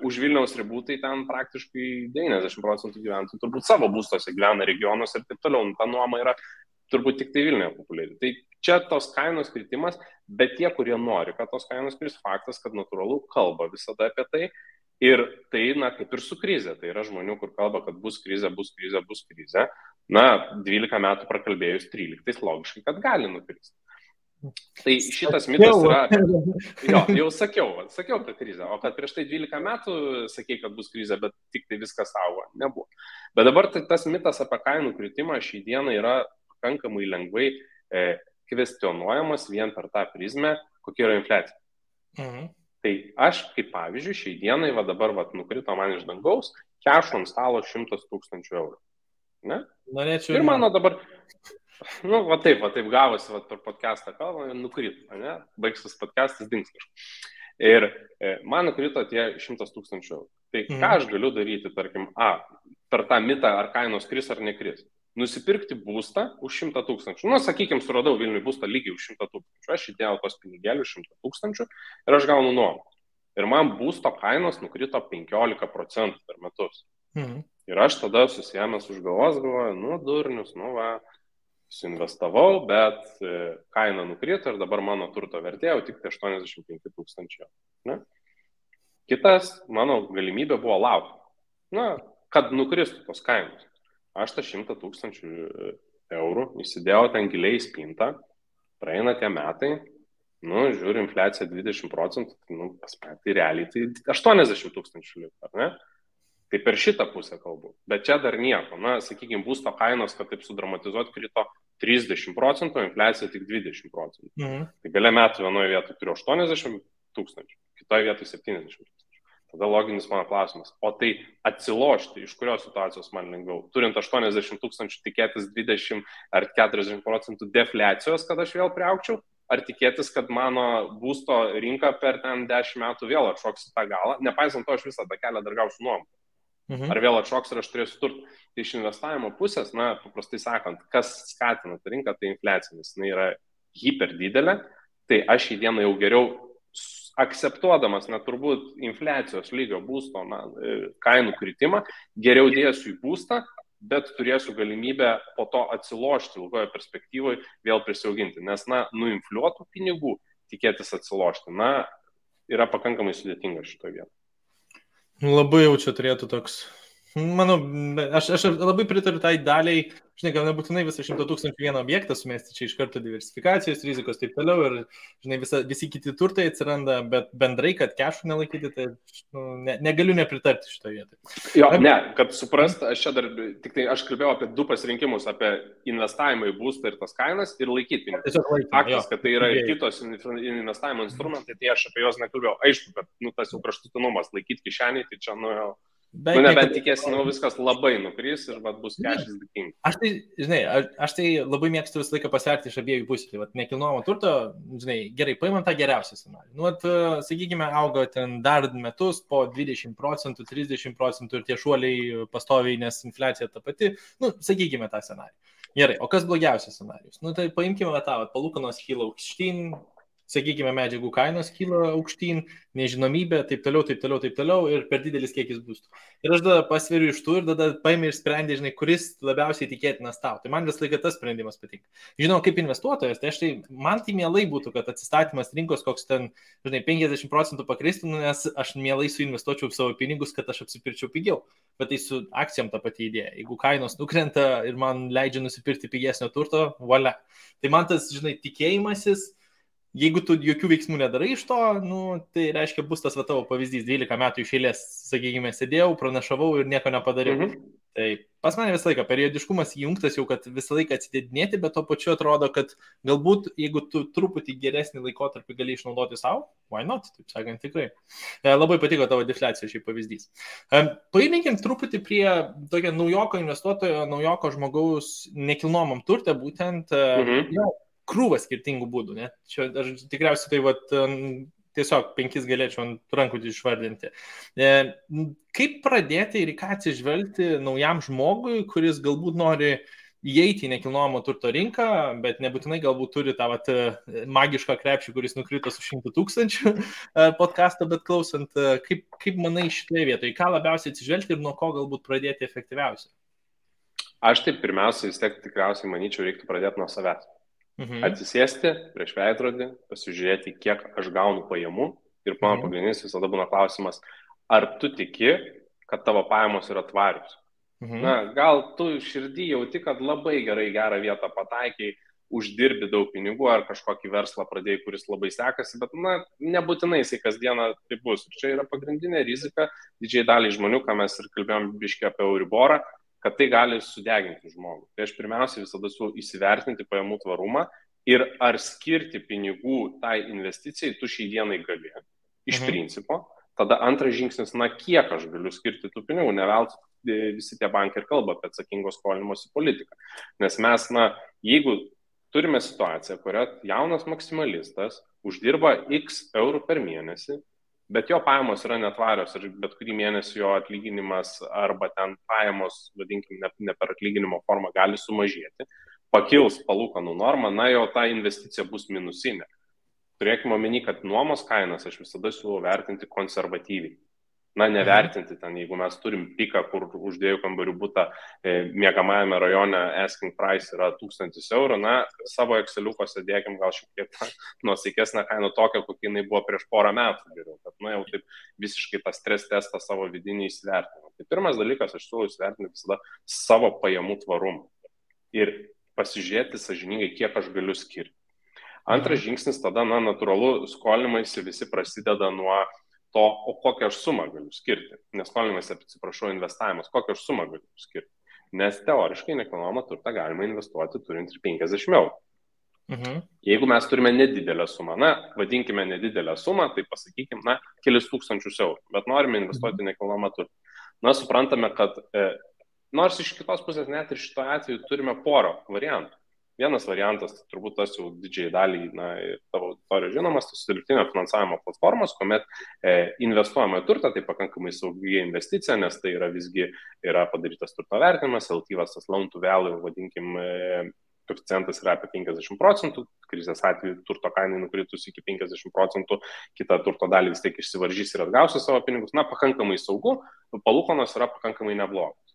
už Vilniaus ribų, tai ten praktiškai 90% gyventojų turbūt savo būstose gyvena regionuose ir taip toliau. Ta nuoma yra turbūt tik tai Vilniuje populiari. Tai čia tos kainos kritimas, bet tie, kurie nori, kad tos kainos kris, faktas, kad natūralu kalba visada apie tai. Ir tai, kaip ir su krize. Tai yra žmonių, kur kalba, kad bus krize, bus krize, bus krize. 12 metų prakalbėjus 13, logiškai, kad gali nukristi. Tai šitas mitas yra, jau sakiau apie krizę, o kad prieš tai 12 metų sakei, kad bus krizė, bet tik tai viskas auga, nebuvo. Bet dabar tas mitas apie kainų kritimą šį dieną yra pakankamai lengvai kvestionuojamas vien per tą prizmę, kokia yra infliacija. Tai aš, kaip pavyzdžiui, šiai dienai, va dabar nukrito man iš dangaus, kešo ant stalo 100 000 eurų. Ne? Norėčiau. Ir mano dabar, va taip gavosi, per podcastą kalbą, nukrito, ne? Baigsis podcastas, dings kažkas. Ir man nukrito tie 100 000 eurų. Tai ką aš galiu daryti, tarkim, per tą mitą, ar kainos kris ar nekris? Nusipirkti būstą už 100 000. Sakykime, suradau Vilniui būstą lygiai už 100 000. Aš įdėjau tos pinigėlius 100 000 ir aš gaunu nuomą. Ir man būsto kainos nukrito 15% per metus. Ir aš tada susiėmęs už galvos galvoju, durnius, suinvestavau, bet kaina nukrito ir dabar mano turto vertė jau tik 85 000. Ne? Kitas mano galimybė buvo laukti, kad nukristų tos kainos. Aš tą 100 000 eurų įsidėjau ten giliai į spintą, praeina tie metai, žiūriu, infliacija 20%, tai realiai tai 80 000 liko, ar ne? Tai per šitą pusę kalbu. Bet čia dar nieko. Sakykime, būsto kainos, kad taip sudramatizuoti, krito 30%, infliacija tik 20%. Tai gale metų vienoje vietoje turiu 80 000, kitoje vietoje 70 000. Tada loginis mano klausimas. O tai atsilošti, iš kurios situacijos man lengviau? Turint 80 000 tikėtis 20 ar 40% defliacijos, kad aš vėl priaugčiau? Ar tikėtis, kad mano būsto rinka per ten 10 metų vėl atšoks tą galą? Nepaisant to, aš visą tą kelią dar gausiu nuomą. Ar vėl atšoks ir aš turėsiu turtą? Tai iš investavimo pusės, paprastai sakant, kas skatina tą rinką, tai infliacija, nes jinai yra hiper didelė. Tai aš į dieną jau geriau akceptuodamas, turbūt infliacijos lygio būsto kainų kritimą, geriau dėsiu į būstą, bet turėsiu galimybę po to atsilošti ilgoje perspektyvoje, vėl prisiauginti. Nes, nuinfliuotų pinigų tikėtis atsilošti, yra pakankamai sudėtinga šitoje vietoje. Labai jau čia turėtų toks, manau, aš labai pritariu tai daliai, žinai, gal nebūtinai visą 100 000 vieną objektą sumesti, čia iš karto diversifikacijos, rizikos taip toliau ir, žinai, visi kiti turtai atsiranda, bet bendrai, kad kešų nelaikyti, tai negaliu nepritarti šitoje vietoje. Jo, kad suprast, aš čia dar, tik tai aš kalbėjau apie du pasirinkimus, apie investavimą į būstą ir tas kainas ir laikyti pinigus. Faktas, kad tai yra ir kitos investavimo instrumentai, tai aš apie juos nekalbėjau. Aišku, kad tas jau kraštutinumas laikyti kišenį, tai čia nebent tikėsi, viskas labai nukris ir bus kešis dėkingi. Aš tai labai mėgstu visą laiką pasverti iš abiejų pusių. Tai nekilnojamo turto, žinai, gerai, paimam tą geriausią scenarijų. Sakykime, auga ten dar metus po 20%, 30% ir tie šuoliai pastoviai, nes infliacija ta pati. Sakykime tą scenarijų. Gerai, o kas blogiausias scenarijus? Tai paimkime tą, palūkanos kyla aukštyn, sakykime, medžiagų kainos kyla aukštyn, nežinomybė, taip toliau ir per didelis kiekis būstų. Ir aš tada pasveriu iš tų ir tada paimi ir sprendi, žinai, kuris labiausiai tikėtinas tau. Tai man vis laiką tas sprendimas patinka. Žinau, kaip investuotojas, tai man tai mielai būtų, kad atsistatymas rinkos koks ten, žinai, 50% pakristų, nes aš mielai suinvestuočiau savo pinigus, kad aš apsipirčiau pigiau. Bet tai su akcijom ta pati idėja. Jeigu kainos nukrenta ir man leidžia nusipirkti pigesnio turto, valia. Tai man tas, žinai, tikėjimasis. Jeigu tu jokių veiksmų nedarai iš to, tai reiškia, bus tas tavo pavyzdys, 12 metų iš eilės, sakykime, sėdėjau, pranašavau ir nieko nepadariau. Tai pas mane visą laiką periodiškumas įjungtas jau, kad visą laiką atsidėdinėti, bet to pačiu atrodo, kad galbūt, jeigu tu truputį geresnį laikotarpį gali išnaudoti savo, why not, taip sakant, tikrai. Labai patiko tavo defliacijos šiai pavyzdys. Paimėkim truputį prie tokio naujoko investuotojo, naujoko žmogaus nekilnojamam turte, būtent krūvą skirtingų būdų, ne? Čia aš tikriausiai tai tiesiog 5 galėčiau ant rankų išvardinti. Kaip pradėti ir į ką atsižvelgti naujam žmogui, kuris galbūt nori įeiti į nekilnojamo turto rinką, bet nebūtinai galbūt turi tą magišką krepšį, kuris nukrito su 100 000 podcastą, bet klausant, kaip manai šitoje vietoje, ką labiausiai atsižvelgti ir nuo ko galbūt pradėti efektyviausiai? Aš taip pirmiausia, vis tiek tikriausiai manyčiau, reiktų pradėti nuo savęs. Atsisėsti prieš veidrodį, pasižiūrėti, kiek aš gaunu pajamų ir mano pagrindinis visada būna klausimas, ar tu tiki, kad tavo pajamos yra tvarius. Gal tu širdį jauti, kad labai gerą vietą pataikiai, uždirbi daug pinigų ar kažkokį verslą pradėjai, kuris labai sekasi, bet nebūtinai jisai kasdieną tai bus. Ir čia yra pagrindinė rizika didžiai daliai žmonių, ką mes ir kalbėjom biškį apie Euriborą. kad tai gali sudeginti žmogų. Tai aš pirmiausia visada siūlau įsivertinti pajamų tvarumą ir ar skirti pinigų tai investicijai tu šiai dienai gali. Iš principo. Tada antras žingsnis, kiek aš galiu skirti tų pinigų, ne veltui visi tie bankai ir kalba apie atsakingo skolinimosi politiką. Nes mes, jeigu turime situaciją, kurioje jaunas maksimalistas uždirba X eurų per mėnesį, bet jo pajamos yra netvarios ir bet kurį mėnesį jo atlyginimas arba ten pajamos, vadinkime, ne per atlyginimo formą gali sumažėti, pakils palūkanų normą, jau ta investicija bus minusinė. Turėkime omeny, kad nuomos kainas aš visada siūlau vertinti konservatyviai. Nevertinti ten, jeigu mes turim piką, kur už 2 kambarių butą miegamajame rajone asking price yra 1000 eurų, savo Exceliukose dėkim gal šiek tiek nuosaikesnę kainą tokią, kokia jinai buvo prieš porą metų geriau, kad jau taip visiškai tą stres testą savo vidinį įsivertinimą. Tai pirmas dalykas, aš siūlau įsivertinti visada savo pajamų tvarumą ir pasižiūrėti sąžiningai, kiek aš galiu skirti. Antras žingsnis tada, natūralu, skolinimaisi visi prasideda nuo to, o kokią aš sumą galiu skirti. Neskolinimaisi, atsiprašau, investavimas, kokią aš sumą galiu skirti. Nes teoriškai nekilnojamą turtą galima investuoti turint ir 50 eurų. Jeigu mes turime nedidelę sumą, vadinkime nedidelę sumą, tai pasakykime, kelis tūkstančius eurų, bet norime investuoti nekilnojamą turtą. Suprantame, kad nors iš kitos pusės net ir šito atveju turime porą variantų. Vienas variantas, turbūt tas jau didžiai daliai tavo auditorijos žinomas, tai dirbtinio finansavimo platformos, kuomet investuojama į turtą, tai pakankamai saugi investicija, nes tai yra visgi padarytas turto vertinimas, LTVas, tas loan to value, vadinkim, koeficientas yra apie 50%, krizės atveju turto kainai nukritus iki 50%, kita turto dalį vis tiek išsivaržys ir atgausi savo pinigus, pakankamai saugu, palūkanos yra pakankamai neblogos.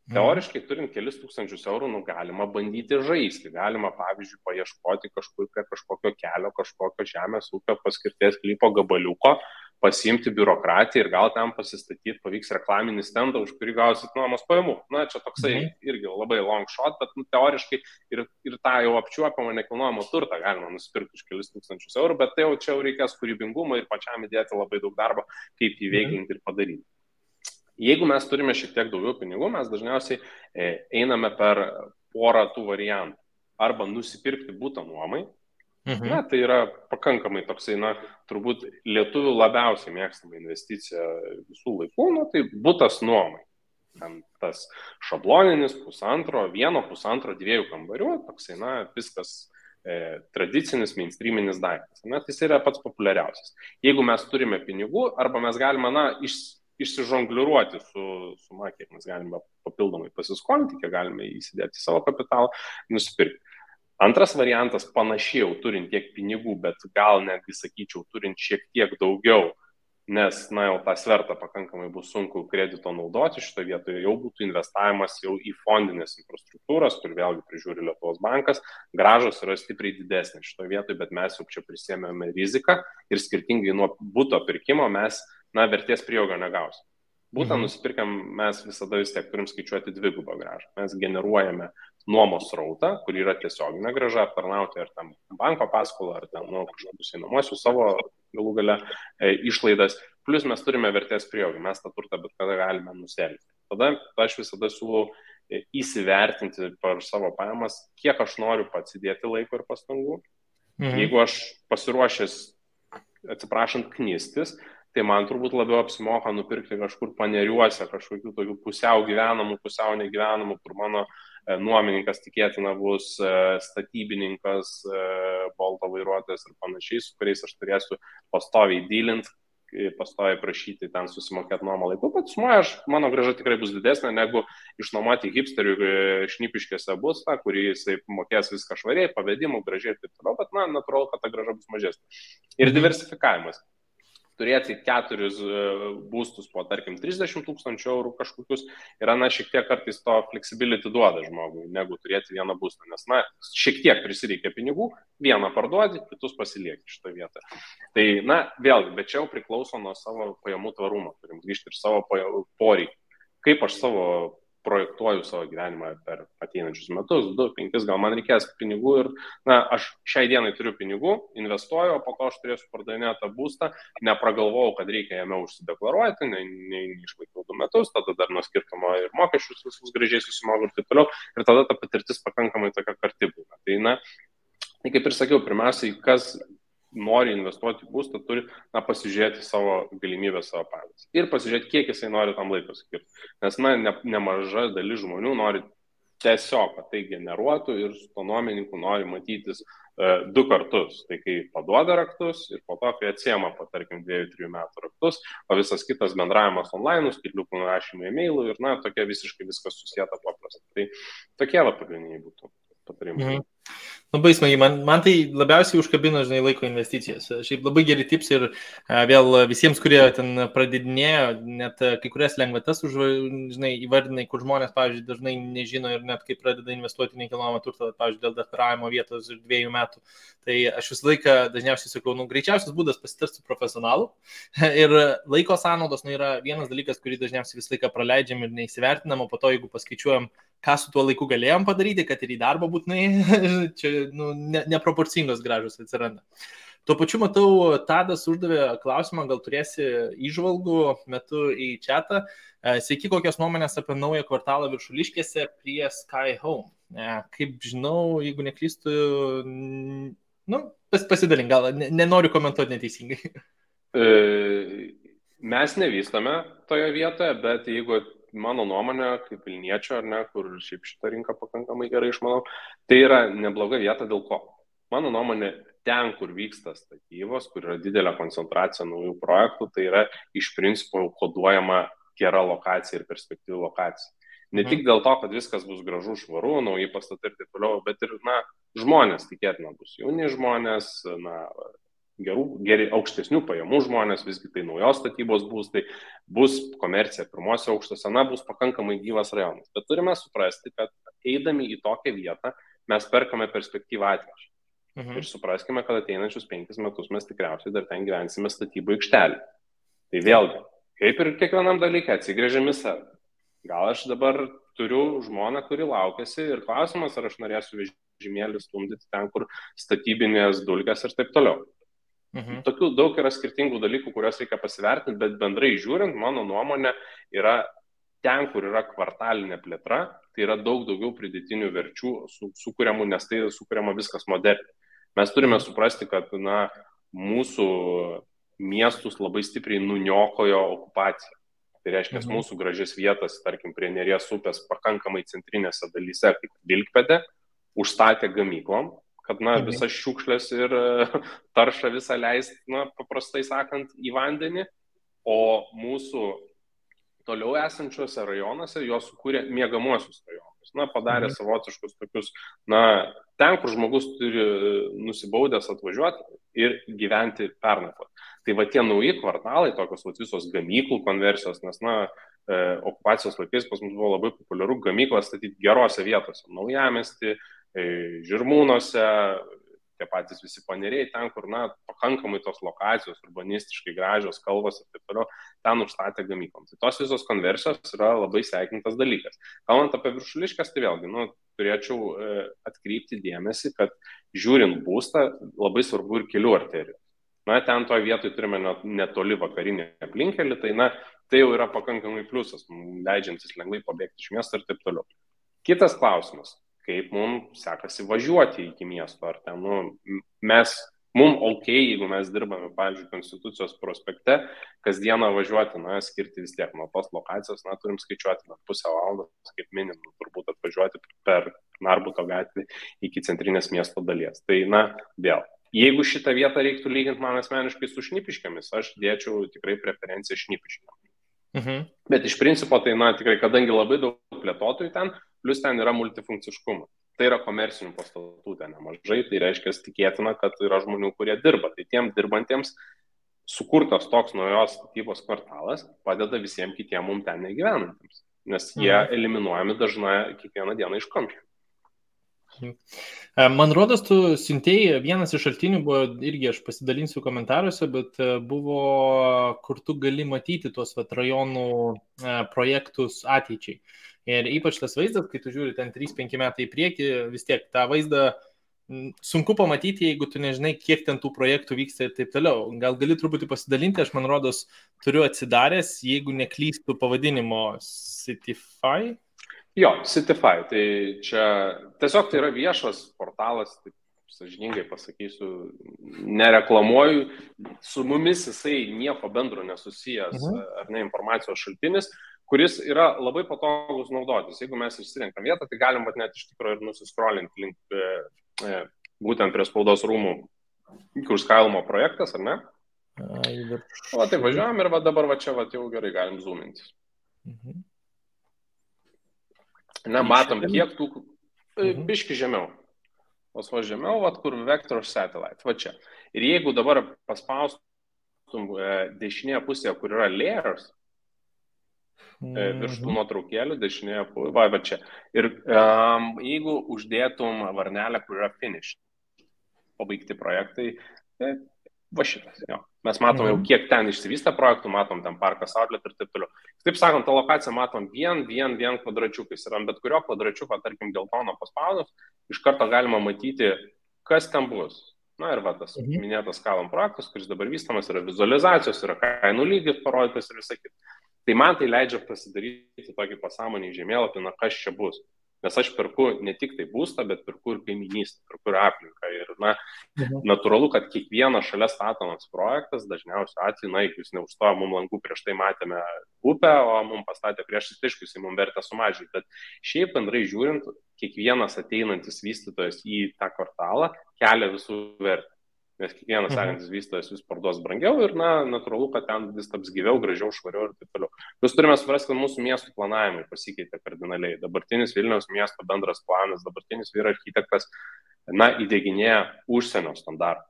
Teoriškai, turint kelis tūkstančius eurų, galima bandyti žaisti, galima, pavyzdžiui, paieškoti kažkokio kelio, kažkokio žemės ūkio paskirties sklypo gabaliuko, pasiimti biurokratiją ir gal ten pasistatyti, pavyks reklaminį stendą, už kurį gausit nuomos pajamų. Čia toksai irgi labai long shot, bet teoriškai ir tą jau apčiuopiamą nekilnojamo turtą galima nusipirkti už kelis tūkstančius eurų, bet tai čia jau reikės kūrybingumo ir pačiam įdėti labai daug darbo, kaip įveiklinti ir padaryti. Jeigu mes turime šiek tiek daugiau pinigų, mes dažniausiai einame per porą tų variantų. Arba nusipirkti butą nuomai. Tai yra pakankamai toksai, turbūt lietuvių labiausiai mėgstama investicija visų laikų, tai butas nuomai. Ten tas šabloninis 1,5, 2 kambarių, toksai, viskas tradicinis, mainstreaminis daiktas. Tai yra pats populiariausias. Jeigu mes turime pinigų, arba mes galime, išsižongliruoti su kiek mes galime papildomai pasiskolinti, kiek galime įsidėti savo kapitalą, nusipirkti. Antras variantas, panašiai jau turint tiek pinigų, bet gal netgi, sakyčiau, turint šiek tiek daugiau, nes, jau tą svertą pakankamai bus sunku kredito naudoti, šitoje vietoje jau būtų investavimas jau į fondinės infrastruktūras, kur vėlgi prižiūri Lietuvos bankas, grąžos yra stipriai didesnės šitoje vietoje, bet mes jau čia prisėmėme riziką ir skirtingai nuo buto pirkimo mes vertės prieaugio negausim. Būtent nusipirkam, mes visada vis tiek turim skaičiuoti dvigubą grąžą. Mes generuojame nuomos srautą, kur yra tiesioginė grąža, aptarnauti ar tam banko paskolą, ar tam kažkokius einamosius savo galų gale išlaidas. Plus mes turime vertės prieaugį, mes tą turtą bet kada galime nuselti. Tada aš visada siūlau įsivertinti per savo pajamas, kiek aš noriu pats įdėti laiko ir pastangų. Jeigu aš pasiruošęs, atsiprašant, knistis, tai man turbūt labiau apsimoka nupirkti kažkur paneriuose, kažkokių tokių pusiau gyvenamų, pusiau negyvenamų, kur mano nuomininkas tikėtina bus statybininkas, bolto vairuotojas ir panašiai, su kuriais aš turėsiu pastoviai dylinti, pastoviai prašyti ten susimokėti nuomą laiku, bet sumoje mano grąža tikrai bus didesnė negu išnuomoti hipsterių Šnipiškėse būstą, kurį jisai mokės viską švariai, pavedimų, gražiai ir taip toliau, bet natūralu, kad ta grąža bus mažesnė. Ir diversifikavimas. Turėti 4 būstus po, tarkim, 30 000 eurų kažkokius yra, šiek tiek kartais to flexibility duoda žmogui, negu turėti vieną būstą, nes, šiek tiek prisireikia pinigų, vieną parduodi, kitus pasilieki šitoje vietoje. Tai, vėlgi, bet čia jau priklauso nuo savo pajamų tvarumo, turim grįžti ir savo poreikį. Kaip aš projektuoju savo gyvenimą per ateinančius metus, 2, 5, gal man reikės pinigų ir, aš šiai dienai turiu pinigų, investuoju, o po to aš turėsiu pardavinėti tą būstą, nepragalvojau, kad reikia jame užsideklaruoti, neišlaikiau 2 metus, tada dar nuo skirtumo ir mokesčius visus gražiai susimoka ir taip toliau, ir tada ta patirtis pakankamai tokia karti būna. Tai kaip ir sakiau, pirmiausiai, kas nori investuoti į būstą, turi pasižiūrėti savo galimybę, savo pavyzdį. Ir pasižiūrėti, kiek jisai nori tam laiko skirti. Nes nemaža dalis žmonių nori tiesiog, kad tai generuotų ir su to nuomininku nori matytis 2 kartus. Tai kai paduoda raktus ir po to, kai atsiema po, tarkim, 2-3 metų raktus, o visas kitas bendravimas online, skaitliukų nurašymai e-mailų ir, tokia visiškai viskas susieta paprasta. Tai tokie pagrindiniai būtų patarimai. Labai smagiai, man tai labiausiai užkabino, laiko investicijas. Šiaip labai geri tips ir vėl visiems, kurie ten pradedinėjo, net kai kurias lengvatas įvardinai, kur žmonės, pavyzdžiui, dažnai nežino ir net kai pradeda investuoti nekilnojamą turtą, pavyzdžiui, dėl deklaravimo vietos ir 2 metų. Tai aš visą laiką dažniausiai sakau, greičiausias būdas pasitarti su profesionalu ir laiko sąnaudos yra vienas dalykas, kurį dažniausiai visą laiką praleidžiam ir neįsivertinam, o po to, jeigu paskaičiuojam, ką su tuo laiku galėjom padaryti, kad ir į darbą būtinai, čia neproporcingos gražus atsiranda. Tuo pačiu matau, Tadas uždavė klausimą, gal turėsi įžvalgų metu į chatą. Sveiki, kokios nuomonės apie naują kvartalą Viršuliškėse prie Sky Home. Kaip žinau, jeigu neklystu, pasidalink, gal nenoriu komentuoti neteisingai. Mes nevystame toje vietoje, bet jeigu mano nuomonė, kaip Vilniečio, kur šiaip šitą rinką pakankamai gerai išmanau, tai yra nebloga vieta dėl ko. Mano nuomonė, ten, kur vyksta statybos, kur yra didelė koncentracija naujų projektų, tai yra iš principo koduojama gera lokacija ir perspektyvi lokacija. Ne tik dėl to, kad viskas bus gražu, švaru, nauji pastatai ir taip toliau, bet ir, žmonės tikėtina bus jauni žmonės, geri aukštesnių pajamų žmonės, visgi tai naujos statybos būstai, bus komercija pirmose aukštose, bus pakankamai gyvas rajonas. Bet turime suprasti, kad eidami į tokią vietą mes perkame perspektyvą ateičiai. Ir supraskime, kad ateinančius 5 metus mes tikriausiai dar ten gyvensime statybų aikštelį. Tai vėlgi, kaip ir kiekvienam dalykui, atsigrėžiam į save. Gal aš dabar turiu žmoną, kuri laukiasi ir klausimas, ar aš norėsiu vežimėlį stumdyti ten, kur statybinės dulkės ir taip toliau. Tokių daug yra skirtingų dalykų, kuriuos reikia pasivertinti, bet bendrai žiūrint, mano nuomonė yra ten, kur yra kvartalinė plėtra, tai yra daug daugiau pridėtinių verčių sukuriamų, nes tai sukuriama viskas moderniai. Mes turime suprasti, kad mūsų miestus labai stipriai nuniokojo okupacija. Tai reiškia, mūsų gražias vietas, tarkim, prie Neries upės pakankamai centrinėse dalyse, kaip Vilkpėdė, užstatė gamyklom, kad visas šiukšlės ir taršą visą leist, paprastai sakant, į vandenį, o mūsų toliau esančiuose rajonuose jos sukūrė miegamuosius rajonus. Padarė savotiškus tokius, ten, kur žmogus turi nusibaudęs atvažiuoti ir gyventi pernakvoti. Tai va tie nauji kvartalai, tokios visos gamyklų konversijos, nes, okupacijos laikais pas mus buvo labai populiaru gamyklą statyti gerose vietose. Naujamiesty, Žirmūnuose, tie patys visi paneriai, ten, kur, pakankamai tos lokacijos, urbanistiškai gražios, kalvos ir taip toliau, ten užstatė gamyklom. Tai tos visos konversijos yra labai sveikintas dalykas. Kalbant apie Viršuliškes, tai vėlgi, turėčiau atkreipti dėmesį, kad žiūrint būstą, labai svarbu ir kelių arterijų. Ten toje vietoje turime netoli vakarinį aplinkelį, tai jau yra pakankamai pliusas, leidžiantis lengvai pabėgti iš miesto ir taip toliau. Kitas klausimas. Kaip mums sekasi važiuoti iki miesto, ar ten, mums ok, jeigu mes dirbame, pavyzdžiui, Konstitucijos prospekte, kasdieną važiuoti, skirti vis tiek nuo tos lokacijos, turim skaičiuoti pusę valandos, kaip minimum, turbūt atvažiuoti per Narbuto gatvį iki centrinės miesto dalies. Tai, vėl, jeigu šitą vietą reiktų lyginti man asmeniškai su Šnipiškėmis, aš dėčiau tikrai preferenciją Šnipiškėm. Bet iš principo, tai, tikrai, kadangi labai daug plėtotojų ten, plus ten yra multifunkciškumas. Tai yra komercinių pastatų ten nemažai, tai reiškia tikėtina, kad yra žmonių, kurie dirba. Tai tiem dirbantiems sukurtas toks naujos statybos kvartalas padeda visiems kitiem mums ten negyvenantiems, nes jie eliminuojami dažnai kiekvieną dieną iš kamščių. Man rodos, tu siuntėjai, vienas iš šaltinių buvo, irgi aš pasidalinsiu komentaruose, bet buvo, kur tu gali matyti tuos rajonų projektus ateičiai. Ir ypač tas vaizdas, kai tu žiūri ten 3-5 metai į priekį, vis tiek tą vaizdą sunku pamatyti, jeigu tu nežinai, kiek ten tų projektų vyksta ir taip toliau. Gal gali truputį pasidalinti, aš man rodos turiu atsidaręs, jeigu neklystu pavadinimo Citify. Jo, Citify, tai čia tiesiog tai yra viešas portalas, taip sąžiningai pasakysiu, nereklamuoju, su mumis jisai nieko bendro nesusijęs, ar ne, informacijos šaltinis, kuris yra labai patogus naudotis. Jeigu mes išsirenkam vietą, tai galim net iš tikrųjų ir nusiscrollinti link būtent prie spaudos rūmų, kur skalimo projektas, ar ne? O tai važiuojam ir dabar čia jau gerai galim zoomintis. Ne, matom, kiek tų, biški žemiau. O žemiau, kur Vector Satellite, va čia. Ir jeigu dabar paspaustum dešinėje pusėje, kur yra layers, virš tų nuotraukėlių, dešinėje pusėje, va čia. Ir jeigu uždėtum varnelę, kur yra finish, pabaigti projektai, va šitas, jo. Mes matom jau, kiek ten išsivystę projektų, matom ten parkas outlet ir taip toliau. Taip sakant, tą lokaciją matom vien kvadračiukais. Ir ant bet kurio kvadračiuko, tarkim, geltono paspaudus, iš karto galima matyti, kas ten bus. Na ir va, tas minėtas Skalom projektas, kuris dabar vystamas, yra vizualizacijos, yra kainų lygis parodytas ir visą kitą. Tai man tai leidžia pasidaryti tokį pasąmonį žemėlapį, na kas čia bus. Nes aš perku ne tik tai būstą, bet perku ir kaiminystę, perku ir aplinką. Ir natūralu, kad kiekvienas šalia statomas projektas, dažniausiu atveju, jeigu jis neužstojo mums langų, prieš tai matėme upę, o mums pastatė priešais, tai aišku, jis mums vertę sumažinti. Bet šiaip bendrai žiūrint, kiekvienas ateinantis vystytojas į tą kvartalą kelia visų vertę. Nes kiekvienas sekantis vystytojas vis parduos brangiau ir, natūralu, kad ten vis taps gyviau, gražiau, švariau ir taip toliau. Mes turime suprasti, kad mūsų miestų planavimai pasikeitė kardinaliai. Dabartinis Vilniaus miesto bendras planas, dabartinis vyro architektas, įdieginėja užsienio standartų.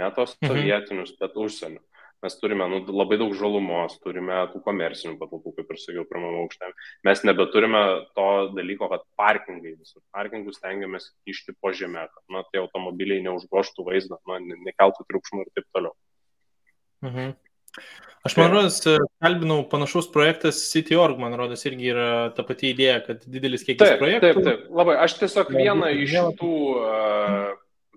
Ne tos sovietinius, bet užsienio. Mes turime labai daug žalumos, turime tų komercinių patalpų, kaip ir sakiau, pirmame aukšte. Mes nebeturime to dalyko, kad parkingai visur. Parkingus stengiamės kišti po žemę, kad tai automobiliai neužgoštų vaizdą, nekeltų triukšmų ir taip toliau. Aš man rodos, kalbinau panašus projektas City.org, man rodos, irgi yra ta pati idėja, kad didelis kiekis projektų. Taip. Labai. Aš tiesiog vieną iš tų,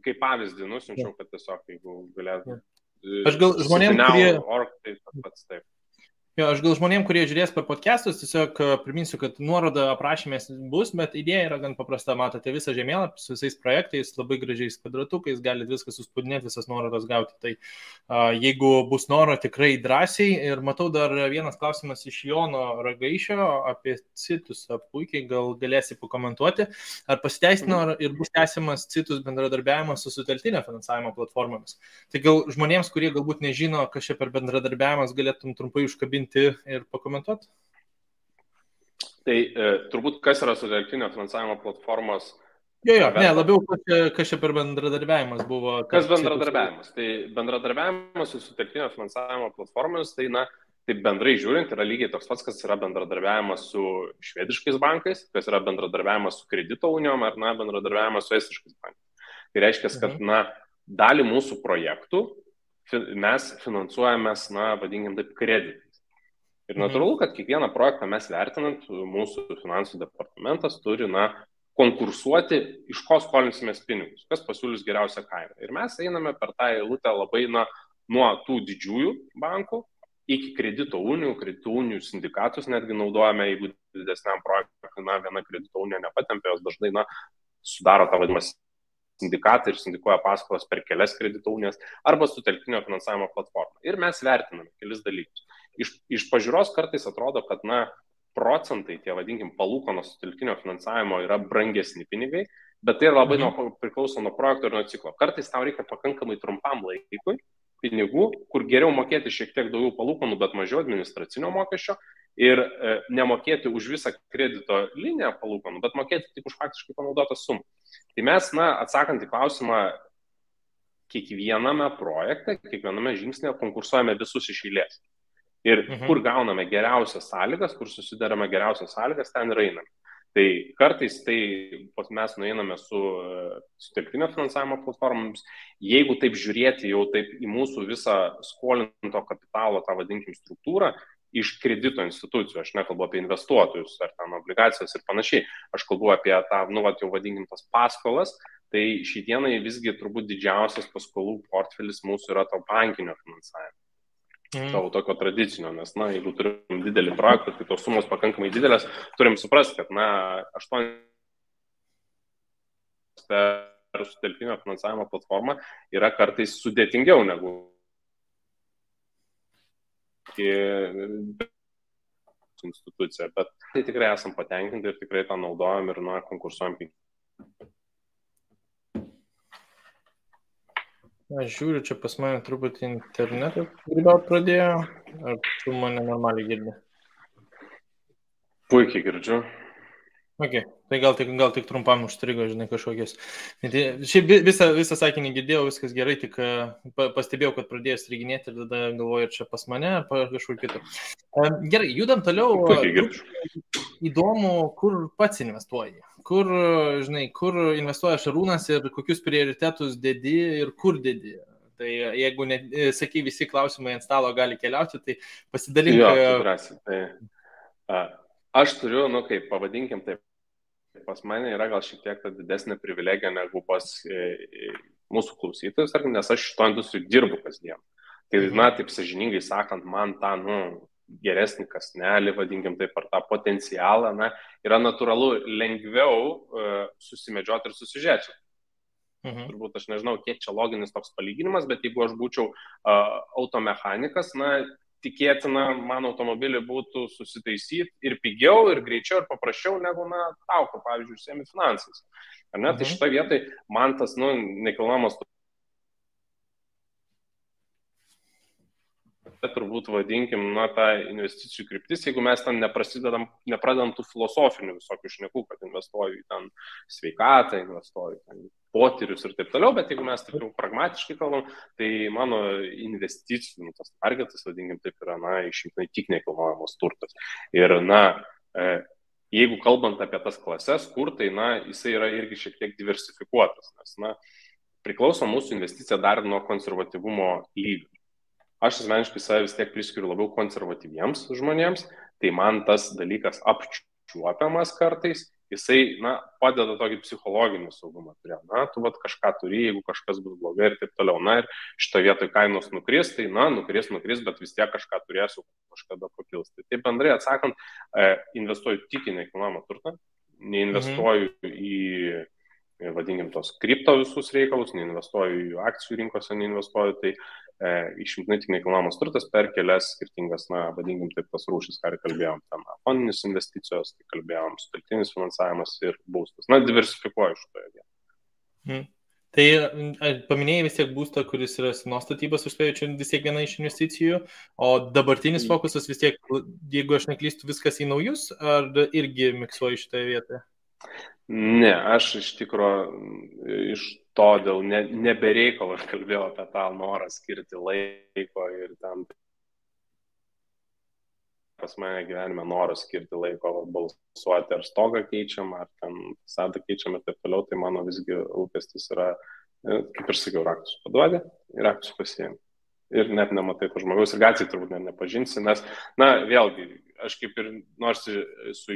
kaip pavyzdį, nusinčiau, kad tiesiog, jeigu galėtų. Aš gal žmonėm, kurie... Taip. Jo, aš gal žmonėm, kurie žiūrės per podcastus, tiesiog priminsiu, kad nuoroda aprašymė bus, bet idėja yra gan paprasta. Matote visą žemėlapį su visais projektais, labai gražiais kvadratukais, galite viską suspaudinėti, visas nuorodas gauti. Tai jeigu bus noro, tikrai drąsiai. Ir matau dar vienas klausimas iš Jono Ragaišio apie Citus. Puikiai, gal galėsi pakomentuoti. Ar pasiteisino ir bus tęsiamas Citus bendradarbiavimas su sutelktinio finansavimo platformomis? Tai gal žmonėms, kurie galbūt nežino, kas čia per bendradarbiavimas, galėtum trumpai užkabinti ir pakomentuoti? Tai turbūt kas yra sutelktinio finansavimo platformos? Labiau kas čia per bendradarbiavimas buvo. Kas bendradarbiavimas? Tai bendradarbiavimas su sutelktinio finansavimo platformomis, tai taip bendrai žiūrint, yra lygiai toks pats, kas yra bendradarbiavimas su švediškais bankais, kas yra bendradarbiavimas su kredito unijom ar bendradarbiavimas su estiškais bankais. Tai reiškia, kad dalį mūsų projektų mes finansuojamės, vadinkim taip, kreditais. Ir natūralu, kad kiekvieną projektą mes vertinant, mūsų finansų departamentas turi, konkursuoti, iš ko skolinsimės pinigus, kas pasiūlys geriausią kainą. Ir mes einame per tą eilutę labai nuo tų didžiųjų bankų iki kredito unijų sindikatus netgi naudojame, jeigu didesniam projektui, viena kredito unija nepatempė, jos dažnai, sudaro tą vadinamą sindikatą ir sindikuoja paskolas per kelias kredito unijas arba sutelktinio finansavimo platformą. Ir mes vertiname kelis dalykus. Iš pažiūros kartais atrodo, kad procentai, tie vadinkim, palūkanos sutelktinio finansavimo yra brangesni pinigai, bet tai labai priklauso nuo projekto ir nuo ciklo. Kartais tau reikia pakankamai trumpam laikui pinigų, kur geriau mokėti šiek tiek daugiau palūkanų, bet mažiau administracinio mokesčio ir nemokėti už visą kredito liniją palūkanų, bet mokėti tik už faktiškai panaudotą sumą. Tai mes, atsakant į klausimą, kiekviename projekte, kiekviename žingsnėje konkursuojame visus iš eilės. Ir kur gauname geriausias sąlygas, kur susidarame geriausias sąlygas, ten ir einame. Tai kartais mes nueiname su sutelktinio finansavimo platformomis. Jeigu taip žiūrėti jau taip į mūsų visą skolinto kapitalo, tą vadinkim, struktūrą, iš kredito institucijų, aš nekalbu apie investuotojus ar ten obligacijas ir panašiai, aš kalbu apie tą, jau vadinkim, tas paskolas, Tai šiandienai visgi turbūt didžiausias paskolų portfelis mūsų yra to bankinio finansavimo. Tavo tokio tradicinio, nes, jeigu turim didelį projektą, tai tos sumos pakankamai didelės, turim suprasti, kad, 8 per sutelktinio finansavimo platformą yra kartais sudėtingiau negu institucija, bet tai tikrai esam patenkinti ir tikrai tą naudojam ir konkursuojam. Aš žiūriu, čia pas mane truputį internetą grybauti pradėjo, ar tu mane normaliai girdi? Puikiai girdžiu. Okay. Tai gal tik trumpam užstrigo, žinai, kažkokios. Šiaip visą sakinį girdėjau, viskas gerai, tik pastebėjau, kad pradėjo striginėti ir tada galvoju, ar čia pas mane, ar kažkur kitur. Gerai, judam toliau. Įdomu, kur pats investuoji. Kur investuoja Šarūnas ir kokius prioritetus dedi ir kur dedi. Tai jeigu sakai, visi klausimai ant stalo gali keliauti, tai pasidalink. Aš turiu, kaip pavadinkim taip, pas mane yra gal šiek tiek didesnė privilegija negu pas mūsų klausytojus, nes aš šito industrijų dirbu kasdien. Tai, taip sąžiningai sakant, man tą, geresnį kasnelį, vadinkim taip, ar tą potencialą, yra natūralu lengviau susimedžioti ir susižiūrėti. Turbūt aš nežinau, kiek čia loginis toks palyginimas, bet jeigu aš būčiau automechanikas, tikėtina, man automobilį būtų susitaisyti ir pigiau, ir greičiau, ir paprasčiau negu tau, pavyzdžiui, užsiemi finansais. Tai šitą vietą man tas nekilnojamas turbūt vadinkim, tą investicijų kryptis, jeigu mes ten nepradedam tų filosofinių visokių šnekų, kad investuoju į ten sveikatą, investuoju į potyrius ir taip toliau, bet jeigu mes taip jau pragmatiškai kalbam, tai mano investicijų, tas targetas, vadinkim, taip yra, išimtinai tik nekilnojamas turtas. Ir, jeigu kalbant apie tas klases, kur tai, jisai yra irgi šiek tiek diversifikuotas, nes, priklauso mūsų investicija dar nuo konservatyvumo lygio. Aš asmeniškai save vis tiek priskiriu labiau konservatyviems žmonėms, tai man tas dalykas apčiuopiamas kartais, jisai, padeda tokį psichologinį saugumą turėti. Tu kažką turi, jeigu kažkas bus blogai ir taip toliau. Ir šito vietoj kainos nukris, tai nukris, bet vis tiek kažką turėsiu, kažkada pakils. Tai taip bendrai atsakant, investuoju tik į nekilnojamą turtą, neinvestuoju į, vadinkim, tos kripto visus reikalus, neinvestuoju į akcijų rinkose, neinvestuoju, tai išimtinai tik nekilnojamas turtas per kelias skirtingas, vadinkim taip, tas rūšis, ką ir kalbėjom, ten fondinės investicijos, tai kalbėjom, sutelktinis finansavimas ir būstas. Diversifikuoju šitoje vietoje. Tai paminėjai vis tiek būstą, kuris yra senos statybos, užspėjau, čia vis tiek viena iš investicijų, o dabartinis fokusas vis tiek, jeigu aš neklystu, viskas į naujus, ar irgi miksuoju šitoje vietoje? Ne, aš iš tikro iš to dėl nebereikalo aš kalbėjau apie tą norą skirti laiko ir ten pas mane gyvenime noras skirti laiko balsuoti, ar stogą keičiam, ar ten fasadą keičiam ir taip toliau, tai mano visgi lūkestis yra, kaip ir sakiau, raktus paduodi ir raktus pasiėmi. Ir net nematai to žmogaus ir gatvėje turbūt nepažinsi, nes, vėlgi, aš kaip ir nors su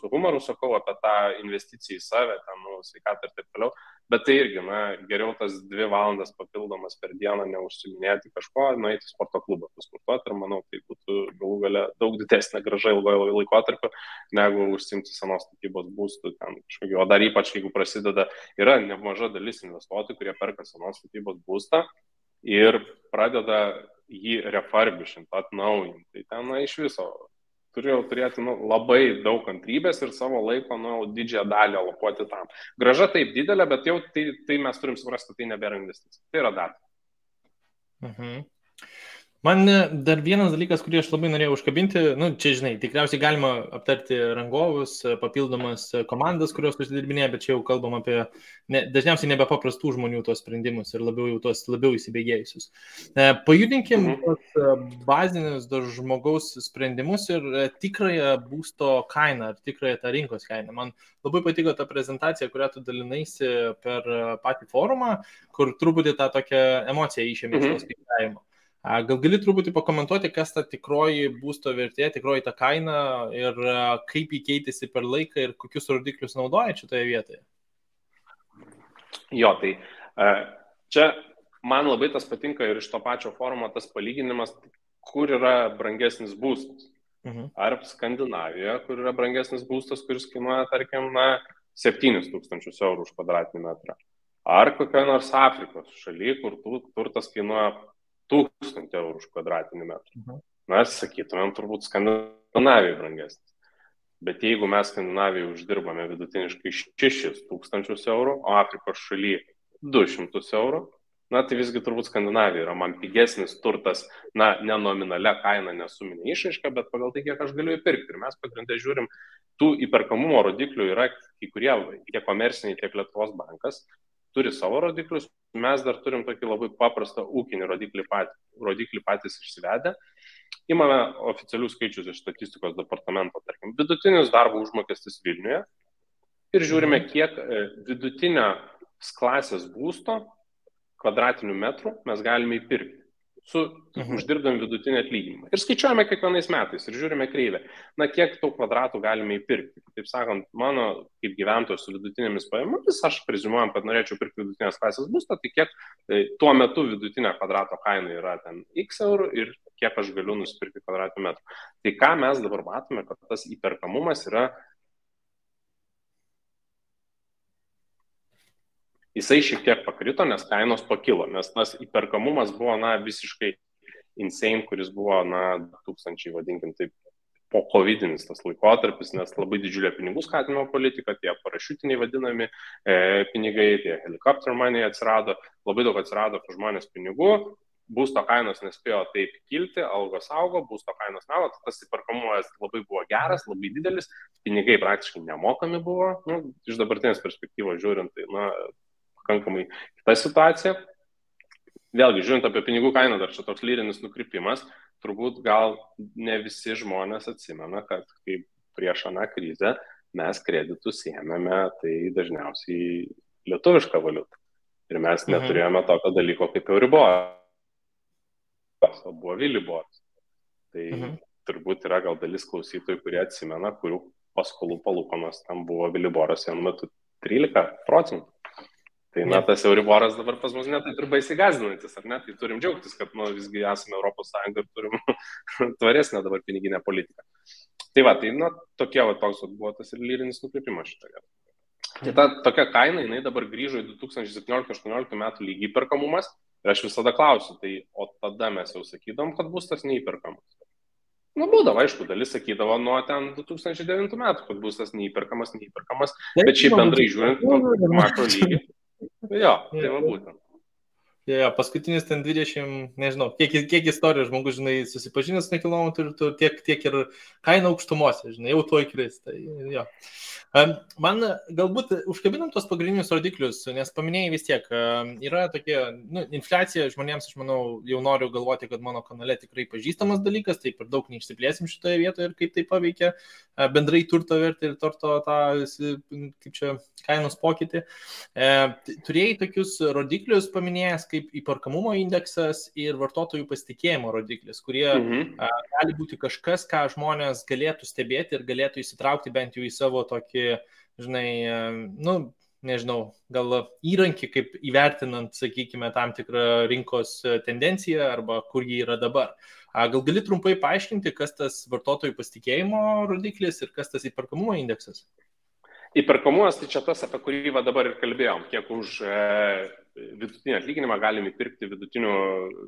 humoru sakau apie tą investiciją į save, ten, sveikatą ir taip toliau, bet tai irgi, geriau tas 2 valandas papildomas per dieną neužsiminėti kažko, nueiti į sporto klubą pasportuoti ir manau, tai būtų galų gale daug didesnė grąža ilgojo laikotarpio, negu užsiimti senos statybos būstų ten kažkokio, o dar ypač, jeigu prasideda, yra nemaža dalis investuotojų, kurie perka senos statybos būstą ir pradeda jį refurbishinti, atnaujinti. Tai ten iš viso turėjau turėti labai daug kantrybės ir savo laiko didžiąją dalį alokuoti tam. Grąža taip didelė, bet jau tai mes turim suprasti, tai nebėra investicija. Tai yra data. Man dar vienas dalykas, kurį aš labai norėjau užkabinti, čia, žinai, tikriausiai galima aptarti rangovus, papildomas komandas, kurios užsidirbinėja, bet čia jau kalbam apie dažniausiai nebepaprastų žmonių tos sprendimus ir labiau įsibėgėjusius. Pajudinkim bazinius žmogaus sprendimus ir tikrąją būsto kainą, ar tikrąją tą rinkos kainą. Man labai patiko ta prezentacija, kurią tu dalinaisi per patį forumą, kur truputį tą tokią emociją išėmė iš to skaičiavimo. Gal gali truputį pakomentuoti, kas ta tikroji būsto vertė, tikroji ta kaina ir kaip jį keitėsi per laiką ir kokius rodiklius naudoja šitoje vietoje? Jo, tai čia man labai tas patinka ir iš to pačio forumo tas palyginimas, kur yra brangesnis būstas. Ar Skandinavijoje, kur yra brangesnis būstas, kuris kainuoja, tarkim, 7 000 eurų už kvadratinį metrą. Ar kokia nors Afrikos šaly, kur turtas kainuoja 1000 eurų už kvadratinį metrą. Sakytumėm, turbūt Skandinavijoje brangesnis. Bet jeigu mes Skandinavijoje uždirbame vidutiniškai 6000 eurų, o Afrikos šaly 200 eurų, tai visgi turbūt Skandinavija yra man pigesnis turtas, ne nominalia kaina, nesuminė išraiška, bet pagal tai, kiek aš galiu įpirkti. Ir mes pagrindę žiūrim, tų įperkamumo rodiklių yra kai kurie, tiek komerciniai, tiek Lietuvos bankas, turi savo rodiklius, mes dar turim tokį labai paprastą ūkinį rodiklį patys išsivedę. Imame oficialius skaičius iš statistikos departamento, tarkim, vidutinis darbo užmokestis Vilniuje ir žiūrime, kiek vidutinio klasės būsto kvadratinių metrų mes galime įpirkti su uždirbdami vidutinį atlyginimą. Ir skaičiuojame kiekvienais metais ir žiūrime kreivę, kiek tų kvadratų galime įpirkti. Taip sakant, mano kaip gyventojas su vidutinėmis pajamomis, aš preziumuojam, kad norėčiau pirkti vidutinės klasės būstą, tai kiek tuo metu vidutinė kvadrato kaina yra ten x eurų ir kiek aš galiu nusipirkti kvadratinių metrų. Tai ką mes dabar matome, kad tas įperkamumas yra jisai šiek tiek pakrito, nes kainos pakilo, nes tas įperkamumas buvo visiškai insane, kuris buvo 2000, vadinkim taip, po covidinis tas laikotarpis, nes labai didžiulė pinigų skatinimo politika, tie parašiutiniai vadinami pinigai, tie helicopter money atsirado, labai daug atsirado žmonės pinigų, būsto kainos nespėjo taip kilti, algos augo, būsto kainos neaugo, tas įperkamumas labai buvo geras, labai didelis, pinigai praktiškai nemokami buvo, iš dabartinės perspektyvos žiūrint, tai pakankamai kita situacija. Vėlgi, žiūrint apie pinigų kainą, dar čia toks lyrinis nukrypimas, turbūt gal ne visi žmonės atsimena, kad kaip prieš aną krizę mes kreditus ėmėme, tai dažniausiai lietuvišką valiutą. Ir mes neturėjome tokio dalyko kaip Euriboras, o buvo Viliboras. Tai turbūt yra gal dalis klausytojų, kurie atsimena, kurių paskolų palūkanos tam buvo Viliboras vienu metu 13%. Tai tas Euriboras dabar pas mus netaip ir baisiai gąsdinantis, ar ne? Tai turim džiaugtis, kad visgi esame Europos Sąjunga ir turim tvaresnę dabar piniginę politiką. Tai tokie toks buvo tas ir lyrinis nukrypimas šitoje. Tai ta tokia kaina, jinai dabar grįžo į 2017-2018 metų lygį įperkamumas ir aš visada klausiu, tai o tada mes jau sakydom, kad būstas neįperkamas. Būdavo, aišku, dalis sakydavo nuo ten 2009 metų, kad būstas neįperkamas, bet šiaip bendrai žiūrint, makro lygį. Jo, tai va būtent. Paskutinis ten 20, nežinau, kiek istorijų žmogus, susipažinęs su nekilnojamu turtu, tiek ir kaina aukštumose, jau tuoj kris. Tai, jo. Man galbūt užkabinam tos pagrindinius rodiklius, nes paminėjai vis tiek, yra tokie, infliacija žmonėms, aš manau, jau noriu galvoti, kad mano kanale tikrai pažįstamas dalykas, tai per daug neišsiplėsim šitoje vietoje ir kaip tai paveikia bendrai turto vertę ir turto tą, kaip čia, kainos pokytį. Turėjai tokius rodiklius paminėjęs kaip įperkamumo indeksas ir vartotojų pasitikėjimo rodiklis, kurie gali būti kažkas, ką žmonės galėtų stebėti ir galėtų įsitraukti bent jau į savo tokį, nežinau, gal įrankį, kaip įvertinant, sakykime, tam tikrą rinkos tendenciją arba kur jį yra dabar. Gal gali trumpai paaiškinti, kas tas vartotojų pasitikėjimo rodiklis ir kas tas įperkamumo indeksas? Įperkamumas tai čia tas, apie kurį dabar ir kalbėjom, kiek už vidutinį atlyginimą galime įpirkti vidutinių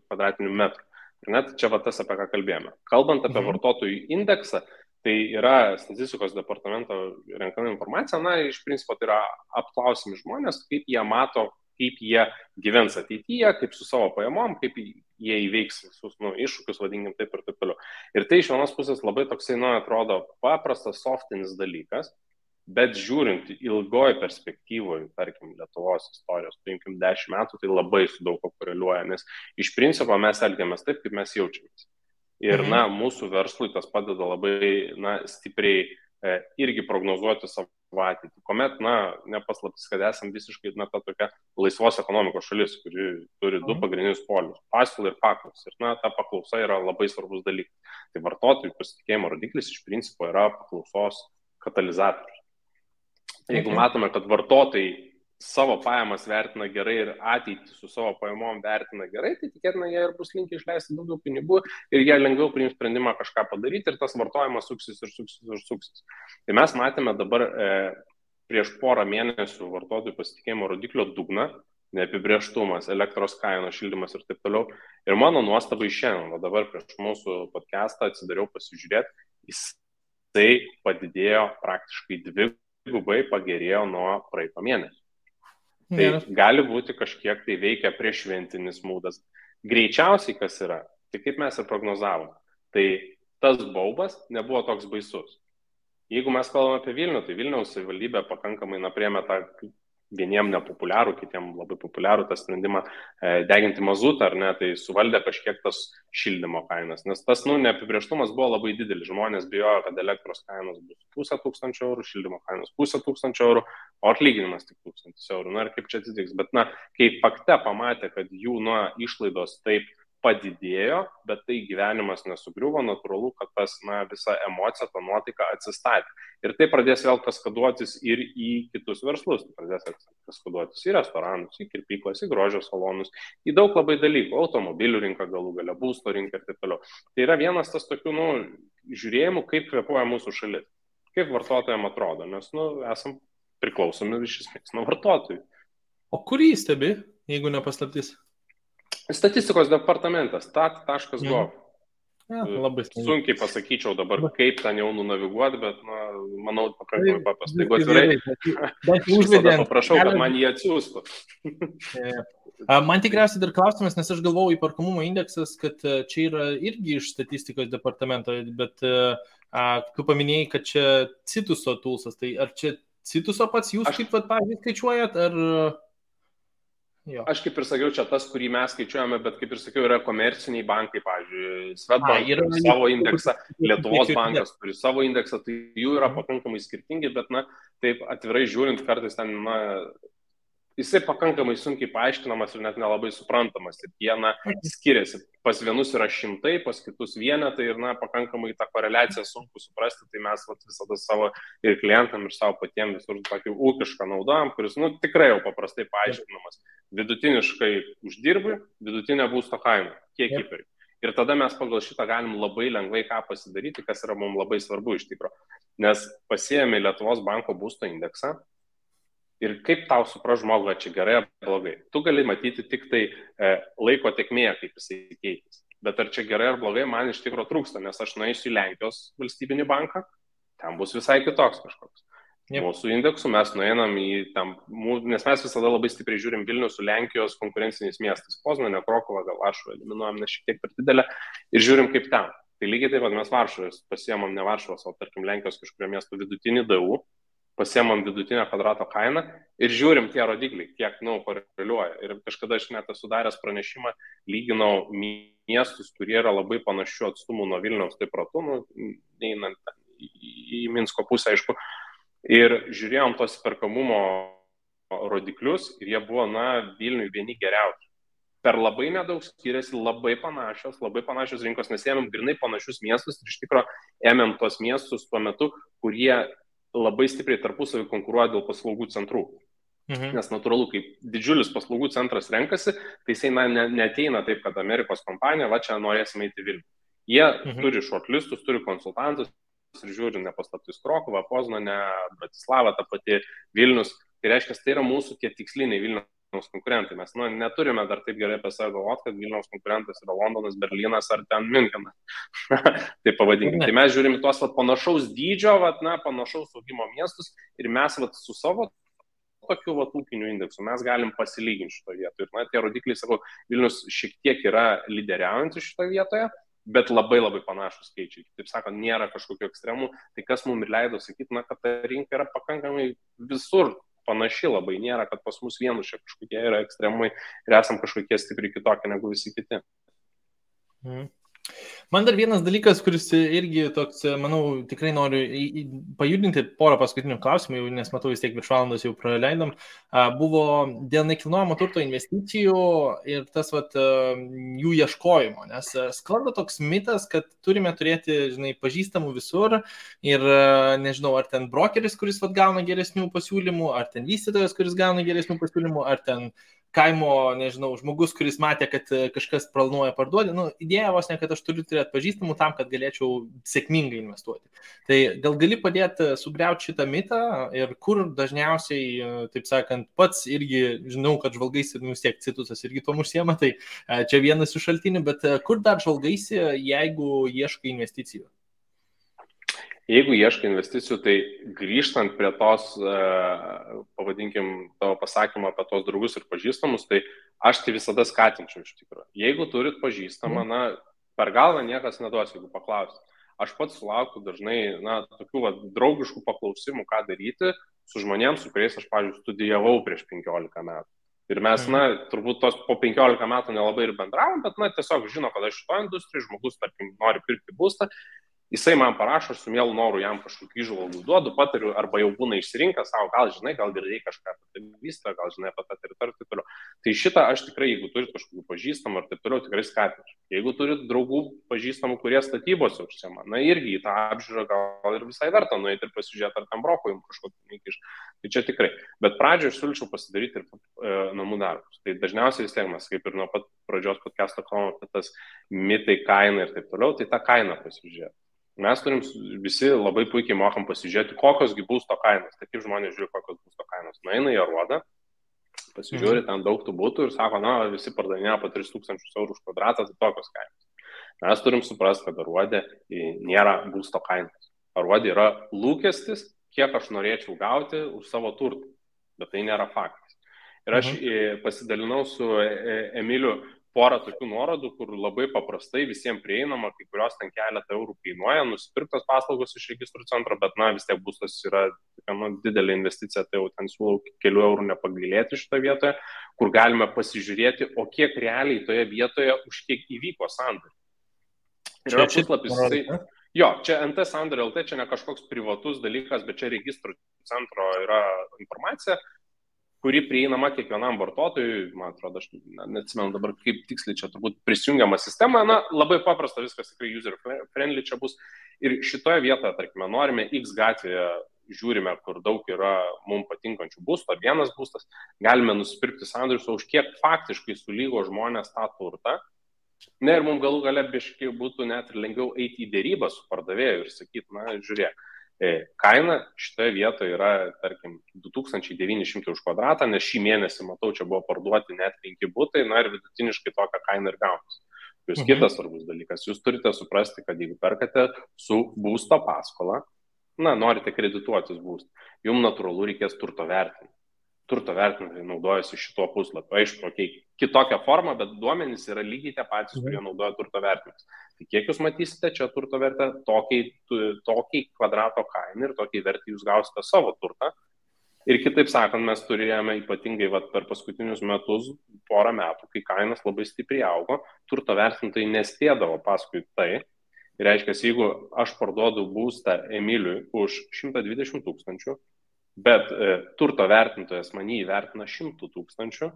kvadratinių metrų. Net čia tas, apie ką kalbėjome. Kalbant apie vartotojų indeksą, tai yra statistikos departamento renkama informacija, iš principo tai yra apklausiami žmonės, kaip jie mato, kaip jie gyvens ateityje, kaip su savo pajamom, kaip jie įveiks visus iššūkius, vadinkim taip ir taip toliau. Ir tai iš vienos pusės labai toksai, atrodo, paprastas, softinis dalykas, bet žiūrint ilgoje perspektyvoje, tarkim, Lietuvos istorijos, paimkim 10 metų, tai labai su daug ko koreliuoja, nes iš principo mes elgiamės taip, kaip mes jaučiamės. Ir, mūsų verslui tas padeda labai, stipriai irgi prognozuoti savo ateitį. Kuomet, nepaslaptis, kad esam visiškai, ta tokia laisvos ekonomikos šalis, kuri turi du pagrindinius polius - pasiūlą ir paklausą. Ir, ta paklausa yra labai svarbus dalykas. Tai vartotojų pasitikėjimo rodiklis iš principo yra paklausos katalizatorius. Jeigu matome, kad vartotojai savo pajamas vertina gerai ir ateitį su savo pajamom vertina gerai, tai tikėtina, jie ir bus linkę išleisti daugiau pinigų ir jie lengviau priims sprendimą kažką padaryti ir tas vartojimas suksis ir suksis ir suksis. Tai mes matėme dabar prieš porą mėnesių vartotojų pasitikėjimo rodiklio dugną, neapibrėžtumas, elektros kainos, šildymas ir taip toliau. Ir mano nuostabai šiandien, o dabar prieš mūsų podcastą atsidariau pasižiūrėti, jisai padidėjo praktiškai dvigubai, pagerėjo nuo praeito mėnesio. Tai gali būti kažkiek tai veikia prieššventinis mūdas. Greičiausiai kas yra, tai kaip mes ir prognozavom, tai tas baubas nebuvo toks baisus. Jeigu mes kalbame apie Vilnių, tai Vilniaus savivaldybė pakankamai priėmė tą vieniem nepopuliarų, kitiem labai populiarų tą sprendimą deginti mazutą, ar ne, tai suvaldė kažkiek tas šildymo kainas, nes tas neapibrėžtumas buvo labai didelis, žmonės bijojo, kad elektros kainos bus 1,5 eurų, šildymo kainos 1,5 eurų, o atlyginimas tik 1,000 eurų, na ir kaip čia atsitiks, bet kai fakte pamatė, kad jų išlaidos taip padidėjo, bet tai gyvenimas nesugriuvo, natūralu, kad tas visa emocija, ta nuotaika atsistatė. Ir tai pradės vėl kaskaduotis ir į kitus verslus. Tai pradės kaskaduotis į restoranus, į kirpyklas, į grožio salonus, į daug labai dalykų, automobilių rinką galų gale, būsto rinką ir taip toliau. Tai yra vienas tas tokių žiūrėjimų, kaip kvėpuoja mūsų šalis, kaip vartotojams atrodo, nes esam priklausomi iš esmės nuo vartotojų. O kur jį stebi, jeigu nepaslaptis? Statistikos departamentas, stat.gov. Labai sunkiai pasakyčiau dabar, kaip ten jau nunaviguoti, bet manau, pakankamai paprastai. Jeigu atvirai, paprašau, kad man jį atsiųstų. Man tikriausiai dar klausimas, nes aš galvojau įperkamumo indeksas, kad čia yra irgi iš statistikos departamento, bet tu paminėjai, kad čia Cituso toolsas, tai ar čia Cituso pats jūs kaip pavyzdžiui skaičiuojat, ar... Jo. Aš kaip ir sakiau, čia tas, kurį mes skaičiuojame, bet kaip ir sakiau, yra komerciniai bankai, pavyzdžiui, Swedbank turi savo indeksą, Lietuvos bankas turi savo indeksą, tai jų yra pakankamai skirtingi, bet, taip atvirai žiūrint, kartais ten, jisai pakankamai sunkiai paaiškinamas ir net nelabai suprantamas. Ir jie, skiriasi. Pas vienus yra šimtai, pas kitus vienetai ir, pakankamai tą koreliaciją sunku suprasti, tai mes visada savo ir klientam, ir savo patiems visur tokį ūkišką naudojam, kuris, tikrai jau paprastai paaiškinamas. Vidutiniškai uždirbi, vidutinė būsto kaina, kiek įpirki. Ir tada mes pagal šitą galim labai lengvai ką pasidaryti, kas yra mums labai svarbu iš tikro. Nes pasiėmė Lietuvos banko būsto indeksą ir kaip tau supras žmogų, ar čia gerai ar blogai. Tu gali matyti tik tai laiko tėkmėje, kaip jisai keitėsi. Bet ar čia gerai ar blogai, man iš tikro trūksta, nes aš nueisiu į Lenkijos valstybinį banką, ten bus visai kitoks kažkoks. Mūsų indeksų mes nueinam į tam, nes mes visada labai stipriai žiūrim Vilnių su Lenkijos konkurenciniais miestais. Poznanė, Krokuva, gal Varšuvą eliminuojam, nes šiek tiek per didelę ir žiūrim kaip ten. Tai lygiai taip pat mes Varšuvos pasiemam ne Varšuvos, o tarkim Lenkijos kažkurio miesto vidutinį DU, pasiemam vidutinę kvadrato kainą ir žiūrim tie rodikliai, kiek, koreliuoja. Ir kažkada aš net esu daręs pranešimą, lyginau miestus, kurie yra labai panašių atstumų nuo Vilniaus, taip ratu, einant į Minsko pusę, aišku. Ir žiūrėjom tos perkamumo rodiklius ir jie buvo, Vilniui vieni geriausių. Per labai nedaug skiriasi, labai panašios rinkos, nes ėmėm grinai panašius miestus ir iš tikro ėmėm tos miestus tuo metu, kurie labai stipriai tarpusavį konkuruoja dėl paslaugų centrų. Nes natūralu, kai didžiulis paslaugų centras renkasi, tai jisai neateina taip, kad Amerikos kompanija, čia norėsime eiti Vilnių. Jie turi shortlistus, turi konsultantus, ir žiūri nepaslaptis Krokuva, Poznanė, Bratislava, ta pati Vilnius. Tai reiškia, tai yra mūsų tie tiksliniai Vilniaus konkurentai. Mes neturime dar taip gerai apie save galvoti, kad Vilniaus konkurentas yra Londonas, Berlynas ar ten Münchenas. Tai pavadinkime. Tai mes žiūrime tuos panašaus dydžio, panašaus augimo miestus ir mes su savo tokiu ūkiniu indeksu mes galim pasilyginti šitoje vietoje. Ir tie rodikliai, sakau, Vilnius šiek tiek yra lyderiaujantis šitoje vietoje, bet labai panašus skaičiai. Taip sakant, nėra kažkokių ekstremų. Tai kas mums ir leido sakyti, kad ta rinka yra pakankamai visur panaši labai. Nėra, kad pas mus vienus čia kažkokie yra ekstremai ir esam kažkokie stipriai kitokie negu visi kiti. Man dar vienas dalykas, kuris irgi toks, manau, tikrai noriu pajudinti porą paskutinių klausimų, nes matau vis tiek virš valandos jau praleidom, buvo dėl nekilnojamo turto investicijų ir tas jų ieškojimo, nes sklando toks mitas, kad turime turėti, žinai, pažįstamų visur ir nežinau, ar ten brokeris, kuris gauna geresnių pasiūlymų, ar ten vystytojas, kuris gauna geresnių pasiūlymų, ar ten kaimo, nežinau, žmogus, kuris matė, kad kažkas planuoja parduoti. Idėja vos ne, kad aš turiu turėti pažįstamų tam, kad galėčiau sėkmingai investuoti. Tai gal gali padėti sugriauti šitą mitą ir kur dažniausiai, taip sakant, pats irgi žinau, kad žvalgaisi, vis tiek Citusas irgi tom užsiema, tai čia vienas iš šaltinių, bet kur dar žvalgaisi, jeigu ieškai investicijų? Jeigu ieškai investicijų, tai grįžtant prie tos, pavadinkim, tavo pasakymą apie tos draugus ir pažįstamus, tai aš tai visada skatinčiau iš tikrųjų. Jeigu turit pažįstamą, per galvą niekas neduos, jeigu paklausit. Aš pats sulaukiu dažnai, tokių draugiškų paklausimų, ką daryti su žmonėms, su kuriais aš, pavyzdžiui, studijavau prieš 15 metų. Ir mes, turbūt tos po 15 metų nelabai ir bendravom, bet, tiesiog žino, kad aš šito industrijai, žmogus, tarkim, nori pirkti būstą. Jisai man parašo, aš su mielu noru jam kažkokių įžvalgų duodu, patariu, arba jau būna išsirinkęs savo, gal žinai, gal girdėjai kažką apie tai vystą, gal žinai apie tą teritoriją ir taip toliau. Tai šitą aš tikrai, jeigu turit kažkokių pažįstamų ir taip toliau, tikrai skatinčiau. Jeigu turit draugų pažįstamų, kurie statybose užsiema, irgi į tą apžiūrą gal ir visai verta nueiti ir pasižiūrėti, ar tam broko jums kažkokį neįkiš. Tai čia tikrai. Bet pradžioje aš siūlyčiau pasidaryti ir namų darbus. Tai dažniausiai vis tiek mes, kaip ir nuo pat pradžios podcast'o kalbame apie tas mitai, kainą ir taip toliau, tai tą kainą pasižiūrėti. Mes turim visi labai puikiai mokam pasižiūrėti, kokiosgi būsto kainos. Tai kaip žmonės žiūri, kokios būsto kainos. Nueina į Aruodą, pasižiūri, ten daug tų būtų ir sako, visi pardavinėja po 3000 eurų už kvadratą, tai tokios kainos. Mes turim suprasti, kad Aruodė nėra būsto kainos. Aruodė yra lūkestis, kiek aš norėčiau gauti už savo turtą. Bet tai nėra faktas. Ir aš pasidalinau su Emiliu porą tokių nuorodų, kur labai paprastai visiems prieinama, kai kurios ten keletą eurų kainuoja, nusipirktos paslaugos iš registrų centro, bet vis tiek būstas yra didelė investicija, tai jau ten siūlau kelių eurų nepagailėti šitoje vietoje, kur galime pasižiūrėti, o kiek realiai toje vietoje už kiek įvyko sandoriai. Ir yra puslapis, čia NT Sandoriai LT, čia ne kažkoks privatus dalykas, bet čia registrų centro yra informacija, kuri prieinama kiekvienam vartotojui, man atrodo, aš neatsimenu dabar, kaip tiksliai čia turbūt prisijungiama sistema, labai paprasta, viskas tikrai user friendly čia bus. Ir šitoje vietoje, tarkime, norime X gatvėje, žiūrime, kur daug yra mums patinkančių būstų, ar vienas būstas, galime nusipirkti sandorius, už kiek faktiškai sulygo žmonės tą turtą. Ir mums galų gale biškai būtų net ir lengviau eiti į dėrybą su pardavėju ir sakyti, žiūrėk, kaina šitoje vietoje yra, tarkim, 2900 už kvadratą, nes šį mėnesį, matau, čia buvo parduoti net 5 būtai, ir vidutiniškai tokią kainą ir gaunasi. Jūs kitas svarbus dalykas, jūs turite suprasti, kad jeigu perkate su būsto paskola, norite kredituotis būstą, jums natūralu reikės turto vertinimo. Turto vertintojai naudojasi šituo puslapiu. Aišku, kitokią formą, bet duomenys yra lygiai tie patys, kurie naudoja turto vertinimus. Tai kiek jūs matysite čia turto vertę, tokiai kvadrato kainą ir tokiai vertę jūs gausite savo turtą. Ir kitaip sakant, mes turėjome ypatingai per paskutinius metus, porą metų, kai kainas labai stipriai augo, turto vertintojai nespėdavo paskui tai. Ir reiškia, jeigu aš parduodu būstą Emiliui už 120 000, bet turto vertintojas man jį įvertina 100 000,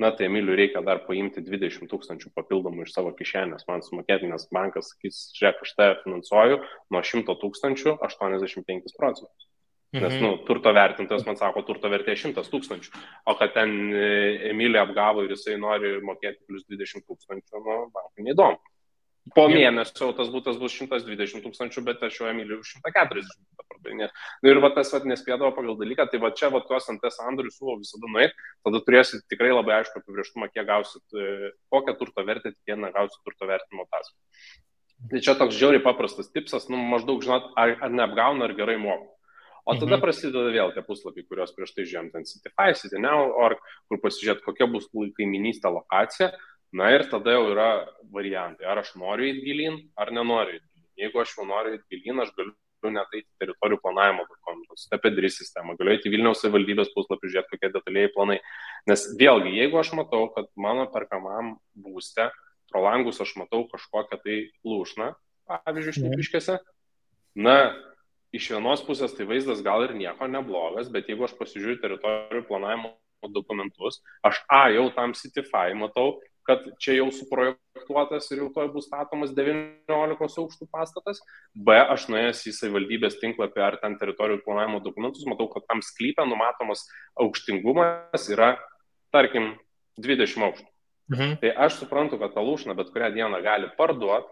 tai Emiliui reikia dar paimti 20 000 papildomų iš savo kišenės, man sumokėti, nes bankas sakys, žiūrėk, aš tave finansuoju nuo 100 000 85%. Nes turto vertintojas man sako, turto vertė 100 000, o kad ten Emilį apgavo ir jisai nori mokėti plus 20 000, bankui neįdomu. Po mėnesio tas būtas bus 120 000, bet aš jau Emiliui 140 pardavinėsiu. Ir tas nespėdavo pagal dalyką, tai čia tuos NT sandorius siūlau visada nueiti, tada turėsit tikrai labai aišku apibrėžtumą, kiek gausit, kokią turto vertę tikėtina gausit turto vertinimo ataskaitą. Tai čia toks žiauriai paprastas tipsas, maždaug žinot, ar neapgauna, ar gerai moka. O tada prasideda vėl tie puslapiai, kuriuos prieš tai žiūrėjom, ten Citify, Cityneo.org, kur pasižiūrėt, kokia bus kaiminystė lokacija. Ir tada jau yra variantai, ar aš noriu eiti gilyn, ar nenoriu eiti gilyn. Jeigu aš jau noriu eiti gilyn, aš galiu net eiti teritorijų planavimo dokumentus, Stepedri sistemą, galiu eiti Vilniaus savivaldybės puslapį, žiūrėti, kokie detaliai planai. Nes vėlgi, jeigu aš matau, kad mano perkamam būste pro langus aš matau kažkokią tai lūšną, pavyzdžiui, Šnipiškėse. Na, iš vienos pusės tai vaizdas gal ir nieko neblogas, bet jeigu aš pasižiūriu teritorijų planavimo dokumentus, aš jau tam Citify matau, kad čia jau suprojektuotas ir jau toj bus statomas 19 aukštų pastatas, aš nuėjęs į savivaldybės tinklapį ar ten teritorijų planavimo dokumentus, matau, kad tam sklype numatomas aukštingumas yra, tarkim, 20 aukštų. Tai aš suprantu, kad tą lūšną bet kurią dieną gali parduoti,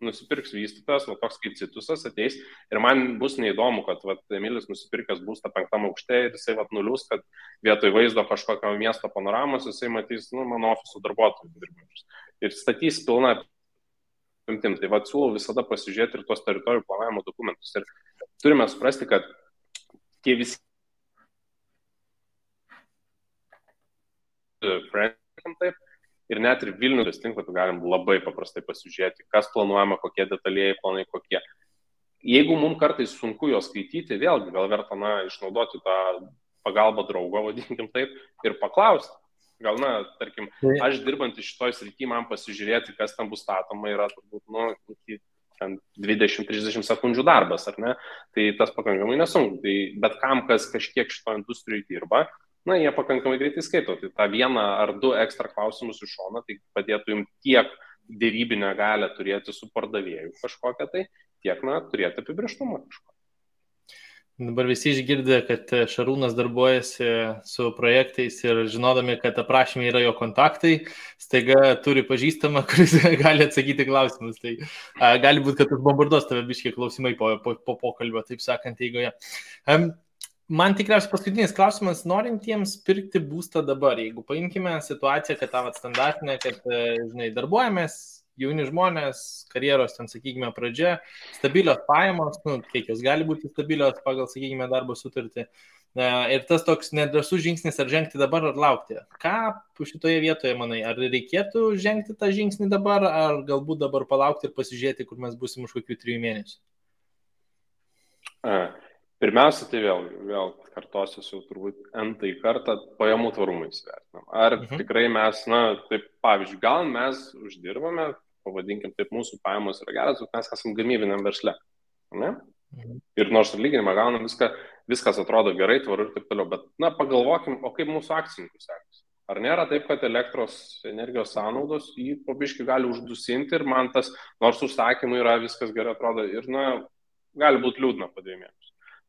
nusipirks vystytojas, toks kaip Citusas ateis ir man bus neįdomu, kad Emilis nusipirkęs būstą 5 aukšte ir jisai nulius, kad vietoj vaizdo kažkokio miesto panoramos jisai matys mano ofiso darbuotojų dirbančius ir statys pilną apimtim. Tai siūlau visada pasižiūrėti ir tuos teritorijų planavimo dokumentus ir turime suprasti, kad tie visi taip, ir net ir Vilnius tinklapį galim labai paprastai pasižiūrėti, kas planuojama, kokie detalieji planai, kokie. Jeigu mums kartais sunku jo skaityti, vėlgi gal verta išnaudoti tą pagalbą draugo, vadinkim taip, ir paklausti. Gal, tarkim, aš dirbant iš šitoj srity, man pasižiūrėti, kas tam bus statoma, yra turbūt, 20-30 sekundžių darbas, ar ne? Tai tas pakankamai nesunku. Tai bet kam, kas kažkiek šito industrijai dirba, jie pakankamai greitai skaito. Tai tą 1 ar 2 ekstra klausimus iš šono, tai padėtų jums tiek dėrybinę galę turėti su pardavėju kažkokią tai, tiek, turėti apibrėžtumą kažkokią. Dabar visi išgirdė, kad Šarūnas darbuojasi su projektais ir žinodami, kad aprašymai yra jo kontaktai, staiga turi pažįstamą, kuris gali atsakyti klausimus. Tai gali būti, kad bombarduos tave biškiai klausimai po pokalbio, taip sakant, eigoje. Man tikriausiai paskutinis klausimas, norintiems pirkti būstą dabar, jeigu paimkime situaciją, kad tą standartinę, kad, darbuojamės, jauni žmonės, karjeros, sakykime, pradžia, stabilios pajamos, kiek jos gali būti stabilios pagal, sakykime, darbo sutartį. Ir tas toks nedrąsus žingsnis, ar žengti dabar, ar laukti. Ką šitoje vietoje, manai, ar reikėtų žengti tą žingsnį dabar, ar galbūt dabar palaukti ir pasižiūrėti, kur mes būsim už kokių 3 mėnesių? Pirmiausia, tai vėl kartosiu jau turbūt n-tai kartą pajamų tvarumą įsivertinam. Ar tikrai mes, taip pavyzdžiui, gal mes uždirbame, pavadinkim taip, mūsų pajamos yra geras, bet mes esam gamybiniam versle. Ne? Ir nors atlyginimą gaunam, viskas atrodo gerai, tvaru ir taip toliau, bet pagalvokim, o kaip mūsų akcininkų sekasi. Ar nėra taip, kad elektros energijos sąnaudos jį po biškį gali uždusinti ir man tas, nors užsakymai yra, viskas gerai atrodo ir gali būti liūdna po 2 mėnesių.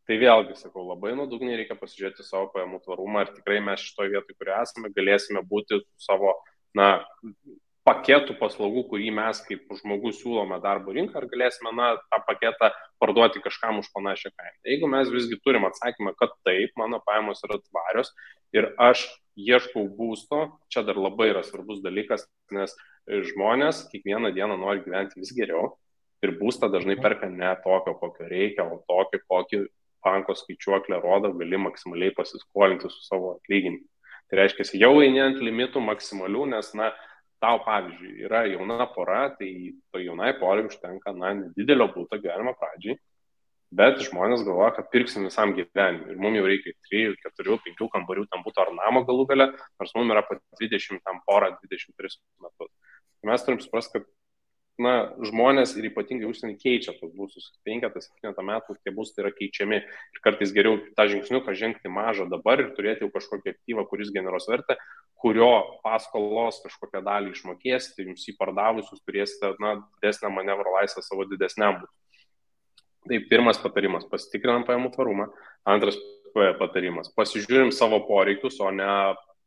Tai vėlgi, sakau, labai nuodugniai reikia pasižiūrėti savo pajamų tvarumą, ar tikrai mes šitoje vietoje, kurioje esame, galėsime būti savo paketų paslaugų, kurį mes kaip žmogus siūlome darbo rinką, ar galėsime tą paketą parduoti kažkam už panašią kainą. Jeigu mes visgi turim atsakymą, kad taip, mano pajamos yra tvarios ir aš ieškau būsto, čia dar labai yra svarbus dalykas, nes žmonės kiekvieną dieną nori gyventi vis geriau ir būstą dažnai perka ne tokio, kokio reikia, o tokio, kokį banko skaičiuoklė rodo, gali maksimaliai pasiskolinti su savo atlyginimu. Tai reiškia, jau eini ant limitų maksimalių, nes, tau, pavyzdžiui, yra jauna pora, tai to jaunai porai užtenka, nedidelio būto gyvenimo pradžiai, bet žmonės galvoja, kad pirksim visam gyvenimui. Ir mums jau reikia 3, 4, 5 kambarių tam būtų ar namo galų gale, nors mums yra pat 20 tam porą, 23 metus. Tai mes turim suprasti, kad žmonės ir ypatingai užsienį keičia tos būstus. 5-7 metų tie būstai yra keičiami ir kartais geriau tą žingsniuką žengti mažą dabar ir turėti jau kažkokį aktyvą, kuris generuos vertę, kurio paskolos kažkokią dalį išmokėsite, jums jį pardavusius turėsite didesnę manevro laisvę savo didesniam būtui. Tai pirmas patarimas, pasitikrinam pajamų tvarumą. Antras patarimas, pasižiūrim savo poreikius, o ne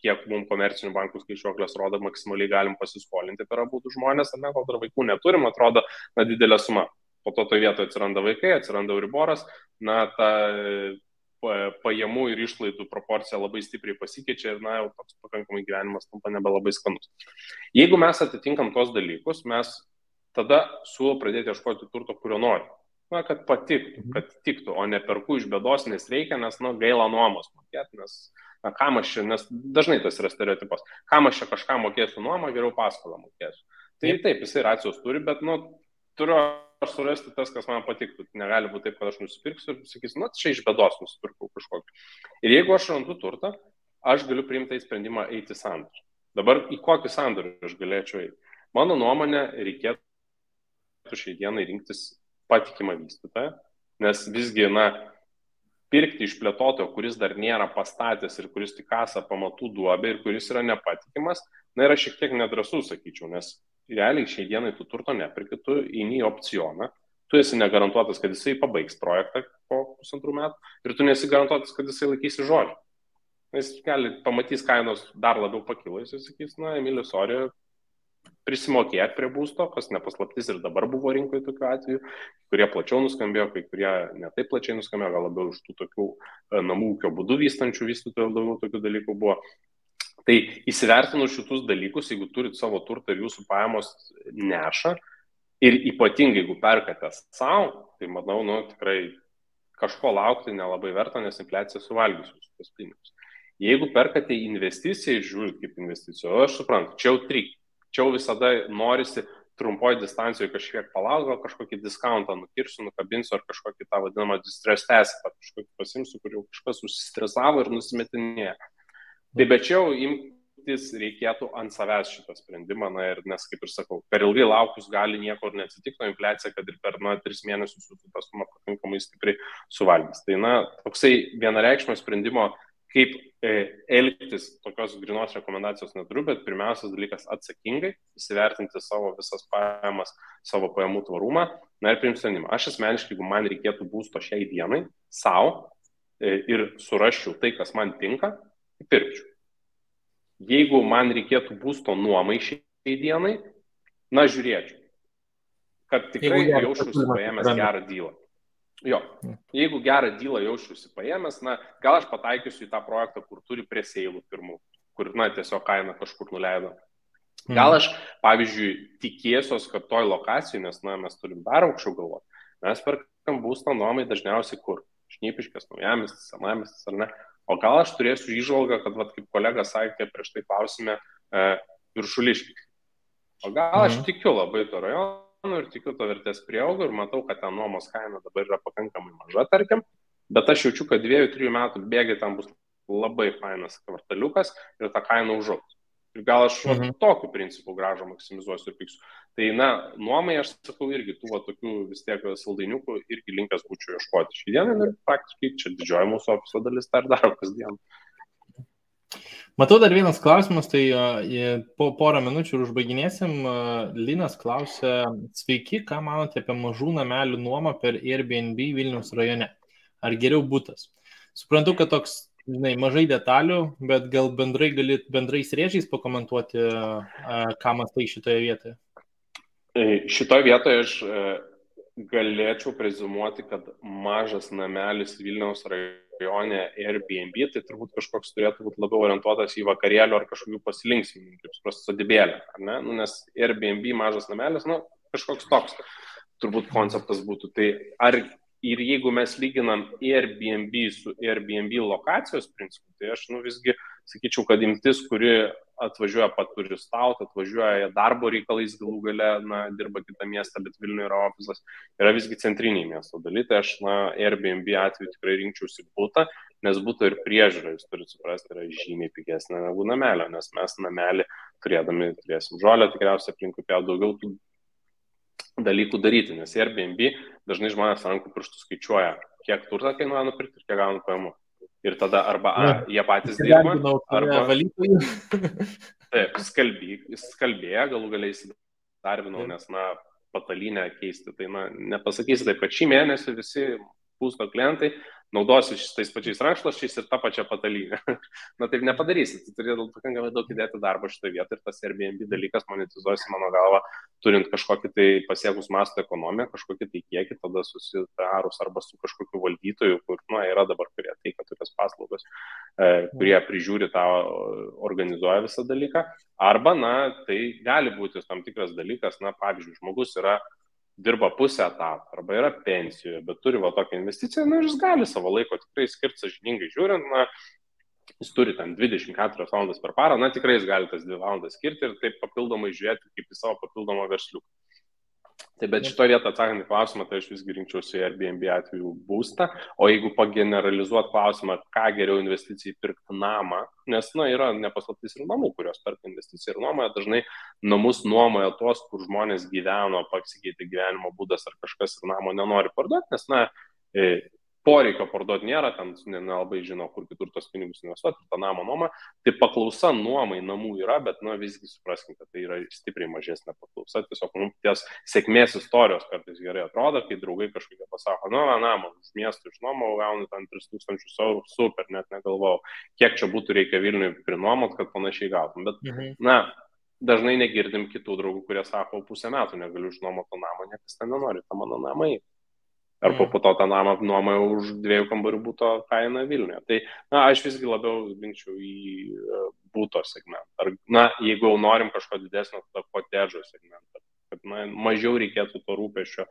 kiek mums komercinių bankų skaičiuoklės rodo, maksimaliai galim pasiskolinti per abudu žmonės, ar ne, kol dar vaikų neturim, atrodo didelė suma. Po to toje vietoje atsiranda vaikai, atsiranda euriboras, ta pajamų ir išlaidų proporcija labai stipriai pasikeičia ir jau toks pakankamai gyvenimas tampa nebelabai skanus. Jeigu mes atitinkam tos dalykus, mes tada siūlau pradėti ieškoti turto, kurio nori. Kad patiktų, kad tiktų, o ne perku iš bėdos, nes reikia, nes gaila nuomos mokėti, kam aš čia, nes dažnai tas yra stereotipas, kam aš čia kažką mokėsiu nuomą, geriau paskolą mokėsiu. Tai taip, jisai racijos turi, bet turiu aš surasti tas, kas man patiktų. Negali būti taip, kad aš nusipirksiu ir sakysiu, čia iš bėdos nusipirkau kažkokį. Ir jeigu aš randu turtą, aš galiu priimti sprendimą eiti sandorį. Dabar į kokį sandorį aš galėčiau eiti? Mano nuomonė, reikėtų šiai dienai rinktis patikimą vystytoją, nes visgi, pirkti iš plėtotojo, kuris dar nėra pastatęs ir kuris tik kasa pamatų duobę ir kuris yra nepatikimas, yra šiek tiek nedrąsu, sakyčiau, nes realiai šiai dienai tu turto nepirki, tu eini į opcioną, tu esi negarantuotas, kad jisai pabaigs projektą po 1,5 metų ir tu nesi garantuotas, kad jisai laikysi žodžio. Jis pamatys kainos dar labiau pakilo, jis sakys, Emilis, sorry, prisimokėti prie būsto, kas nepaslaptis ir dabar buvo rinkoje tokių atvejų, kurie plačiau nuskambėjo, kai kurie netaip plačiai nuskambėjo, gal labiau iš tų tokių namų ūkio būdų vystančių vystytojų daugiau tokių dalykų buvo. Tai įsivertinus šitus dalykus, jeigu turit savo turtą ir jūsų pajamos neša, ir ypatingai jeigu perkate savo, tai manau, tikrai kažko laukti nelabai verta, nes infliacija suvalgys jūsų tos pinigus. Jeigu perkate investiciją ir žiūrit kaip investiciją, aš suprantu, čia jau trik. Čia visada norisi trumpoje distancijoje kažkiek palaukti, gal kažkokį diskountą nukirsiu, nukabinsiu ar kažkokį tą vadinamą distress test, kažkokį pasimsiu, kur jau kažkas užsistresavo ir nusimetinėja. Tai bet čia jau imtis reikėtų ant savęs šitą sprendimą, nes, kaip ir sakau, per ilgai laukus gali nieko ir neatsitikti, infliacija, kad ir per 3 mėnesius tą sumą pakankamai stipriai suvalgys. Tai, toksai vienareikšmio sprendimo, kaip elgtis, tokios grinos rekomendacijos neturiu, bet pirmiausias dalykas atsakingai, įsivertinti savo visas pajamas, savo pajamų tvarumą, ir priimti sprendimą. Aš asmeniškai, jeigu man reikėtų būsto šiai dienai, savo ir surasčiau tai, kas man tinka, tai pirkčiau. Jeigu man reikėtų būsto nuomai šiai dienai, žiūrėčiau, kad tikrai jaučiuosi paėmęs gerą dylą. Jo, jeigu gerą dylą jaučiuosi paėmęs, gal aš pataikysiu į tą projektą, kur turi presėlų pirmų, kur, tiesiog kaina kažkur nuleido. Gal aš, pavyzdžiui, tikėsiuos, kad toj lokacijai, nes, mes turim dar aukščiau galvoti, mes perkam būstą nuomai dažniausiai kur? Šnipiškės, Naujamiestis, Senamiestis ar ne? O gal aš turėsiu įžvalgą, kad, kaip kolega sakė, prieš tai klausime, Viršuliškis. O gal aš tikiu labai to rajono ir tikiu to vertės prieaugą ir matau, kad ten nuomos kaina dabar yra pakankamai maža, tarkim, bet aš jaučiu, kad 2-3 metų bėgiai ten bus labai fainas kvartaliukas ir ta kaina užaugs. Ir gal aš tokiu principu grąžą maksimizuosiu ir piksiu. Tai, nuomai, aš sakau, irgi tų tokių vis tiek saldainiukų irgi linkęs būčiau ieškoti šį dieną ir praktiškai čia didžioji mūsų ofiso dalis dar daro kasdien. Matau dar vienas klausimas, tai po porą minučių ir užbaiginėsim. Linas klausia, sveiki, ką manote apie mažų namelių nuomą per Airbnb Vilniaus rajone? Ar geriau butas? Suprantu, kad toks, mažai detalių, bet gal bendrais rėžiais pakomentuoti, ką mąstai šitoje vietoje? Šitoje vietoje aš galėčiau prezumuoti, kad mažas namelis Vilniaus rajone Airbnb, tai turbūt kažkoks turėtų būti labiau orientuotas į vakarėlių ar kažkokių pasilinksminimų, kaip suprasti, sodybėlę, ar ne? Nes Airbnb mažas namelis, kažkoks toks turbūt konceptas būtų. Tai ir jeigu mes lyginam Airbnb su Airbnb lokacijos principu, tai aš visgi sakyčiau, kad imtis, kuri atvažiuoja paturistauti, atvažiuoja darbo reikalais galų gale, dirba kitą miestą, bet Vilniuje yra ofisas, yra visgi centriniai miesto dalykai. Tai aš Airbnb atveju tikrai rinkčiausi butą, nes buto ir priežiūra, jūs turite suprasti, yra žymiai pigesnė negu namelio, nes mes namelį turėdami turėsim žolę, tikriausiai aplinkui daugiau tų dalykų daryti, nes Airbnb dažnai žmonės rankų pirštų skaičiuoja, kiek turtą kainuoja nupirkti ir kiek gauna pajamų. Ir tada arba jie patys dirba, arba taip, skalbėja, galų galiai įsidarbinau, nes patalynę keisti, tai nepasakysi taip, kad šį mėnesį visi būsto klientai naudosi tais pačiais rankšluosčiais ir tą pačią patalynę. Taip nepadarysi, tu turėtum pakankamai daug įdėti darbo šitoje vietoje ir tas Airbnb dalykas monetizuosi, mano galva, turint kažkokį tai pasiekus masto ekonomiją, kažkokį tai kiekį, tada susitarus arba su kažkokiu valdytoju, kur yra dabar, kurie teikia tokias paslaugas, kurie prižiūri tą, organizuoja visą dalyką, arba, tai gali būti tam tikras dalykas, pavyzdžiui, žmogus dirba pusę etato arba yra pensijoje, bet turi tokią investiciją, ir jis gali savo laiko tikrai skirti sąžiningai žiūrint, jis turi ten 24 valandas per parą, tikrai jis gali tas 2 valandas skirti ir taip papildomai žiūrėti kaip į savo papildomą versliuką. Tai bet šito vietą atsakant į klausimą, tai aš visgi rinkčiausi Airbnb atveju būstą, o jeigu pageneralizuot klausimą, ką geriau investicijai pirkti namą, nes, yra nepaslaptis ir namų, kurios perka investiciją ir nuomoja, dažnai namus nuomoja tos, kur žmonės gyveno, pasikeitė gyvenimo būdas ar kažkas ir namo nenori parduoti, nes, poreikio parduoti nėra, ten nelabai žino, kur kitur tos pinigus investuoti, tą namą nuomą. Tai paklausa nuomai namų yra, bet visgi supraskim, kad tai yra stipriai mažesnė paklausa. Tiesiog ties sėkmės istorijos kartais gerai atrodo, kai draugai kažkokie pasako, namą už miestų išnuomau, gaunu ten 3000 eurų, super, net negalvojau, kiek čia būtų reikia Vilniui prinuomot, kad panašiai gautum. Bet, dažnai negirdim kitų draugų, kurie sako, pusę metų negaliu išnuomoti to namą, niekas ten nenori, tą mano namą į. Arba po to tą namą nuomoja už 2 kambarių būto kainą Vilniuje. Tai, aš visgi labiau linkčiau į būto segmentą. Ar, jeigu jau norim kažko didesnio, tada kotedžo segmentą. Kad, mažiau reikėtų to rūpesčio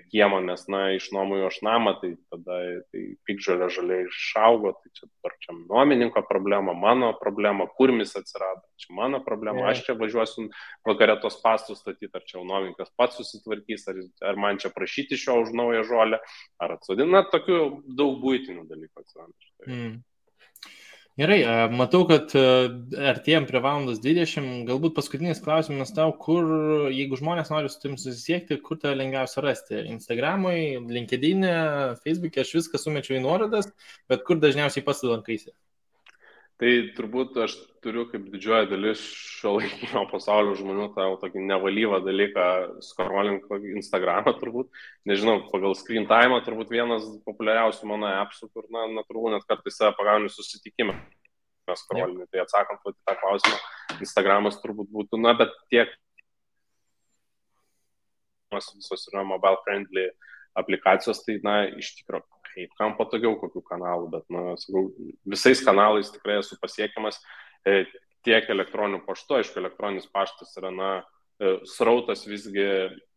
kiemo, nes, išnuomoju aš namą, tai tada piktžolė žaliai išaugo, tai čia nuomininko problema, mano problema, kurmis atsirado, čia mano problema, aš čia važiuosiu vakare tos pastus statyti, ar čia nuomininkas pats susitvarkys, ar man čia prašyti iš jo už naują žolę, ar atsodina, tokių daug buitinių dalykų atsiranda. Gerai, matau, kad artėjom prie 1:20, galbūt paskutinis klausimas tau, kur, jeigu žmonės nori su tim susisiekti, kur tave lengviausia rasti? Instagramui, LinkedIn'e, Facebook'e, aš viską sumečiau į nuorodas, bet kur dažniausiai pats lankaisi? Tai turbūt aš turiu kaip didžioji dalis šiuolaikinio pasaulio žmonių tą tokį nevalyvą dalyką scrolling Instagramą turbūt. Nežinau, pagal screen time turbūt vienas populiariausių mano appsų, kur natūralu net kartais save pagauni susitikimą. Scrolling, tai atsakant į tą klausimą, Instagramas turbūt būtų, bet tiek visos yra mobile friendly aplikacijos, tai iš tikrųjų. Kaip kam patogiau kokių kanalų, bet, sakau, visais kanalais tikrai esu pasiekiamas tiek elektroniniu paštu, aišku, elektroninis paštas yra, srautas visgi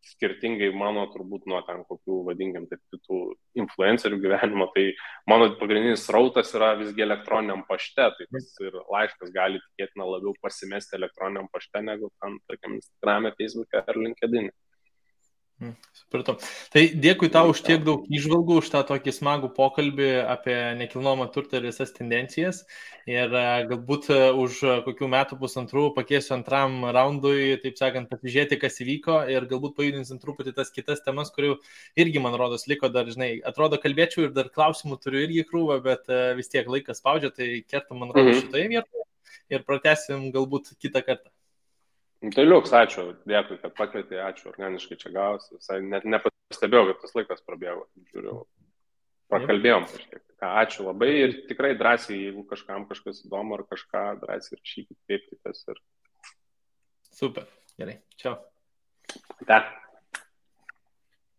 skirtingai mano turbūt nuo ten kokių, vadinkim, taip kitų influencerių gyvenimo, tai mano pagrindinis srautas yra visgi elektroniniam pašte, tai tas ir laiškas gali tikėtina labiau pasimesti elektroniniam pašte, negu tam, tarkim, Instagram'e, Facebook'e ar LinkedIn'e. Supratau. Tai dėkui tau už tiek daug įžvalgų, už tą tokį smagų pokalbį apie nekilnojamą turtą ir visas tendencijas. Ir galbūt už kokių metų pusantrų pakėsiu antram raundui, taip sakant, pasižiūrėti, kas įvyko ir galbūt pajudinsim truputį tas kitas temas, kurių irgi, man rodos, liko dar, atrodo, kalbėčiau ir dar klausimų turiu irgi krūvą, bet vis tiek laikas spaudžia, tai kertam, man rodos, šitoje vietoje ir pratęsim galbūt kitą kartą. Tai liuks, ačiū, dėkui, kad pakvietė, ačiū, organiškai čia gavosi, visai net nepastebėjau, kad tas laikas prabėgo, žiūriu, prakalbėjom kažkiek. Ačiū labai ir tikrai drąsiai, jeigu kažkam kažkas įdomu ar kažką, drąsiai rašykit, kreipkitės ir... Super, gerai, čiau. Ate.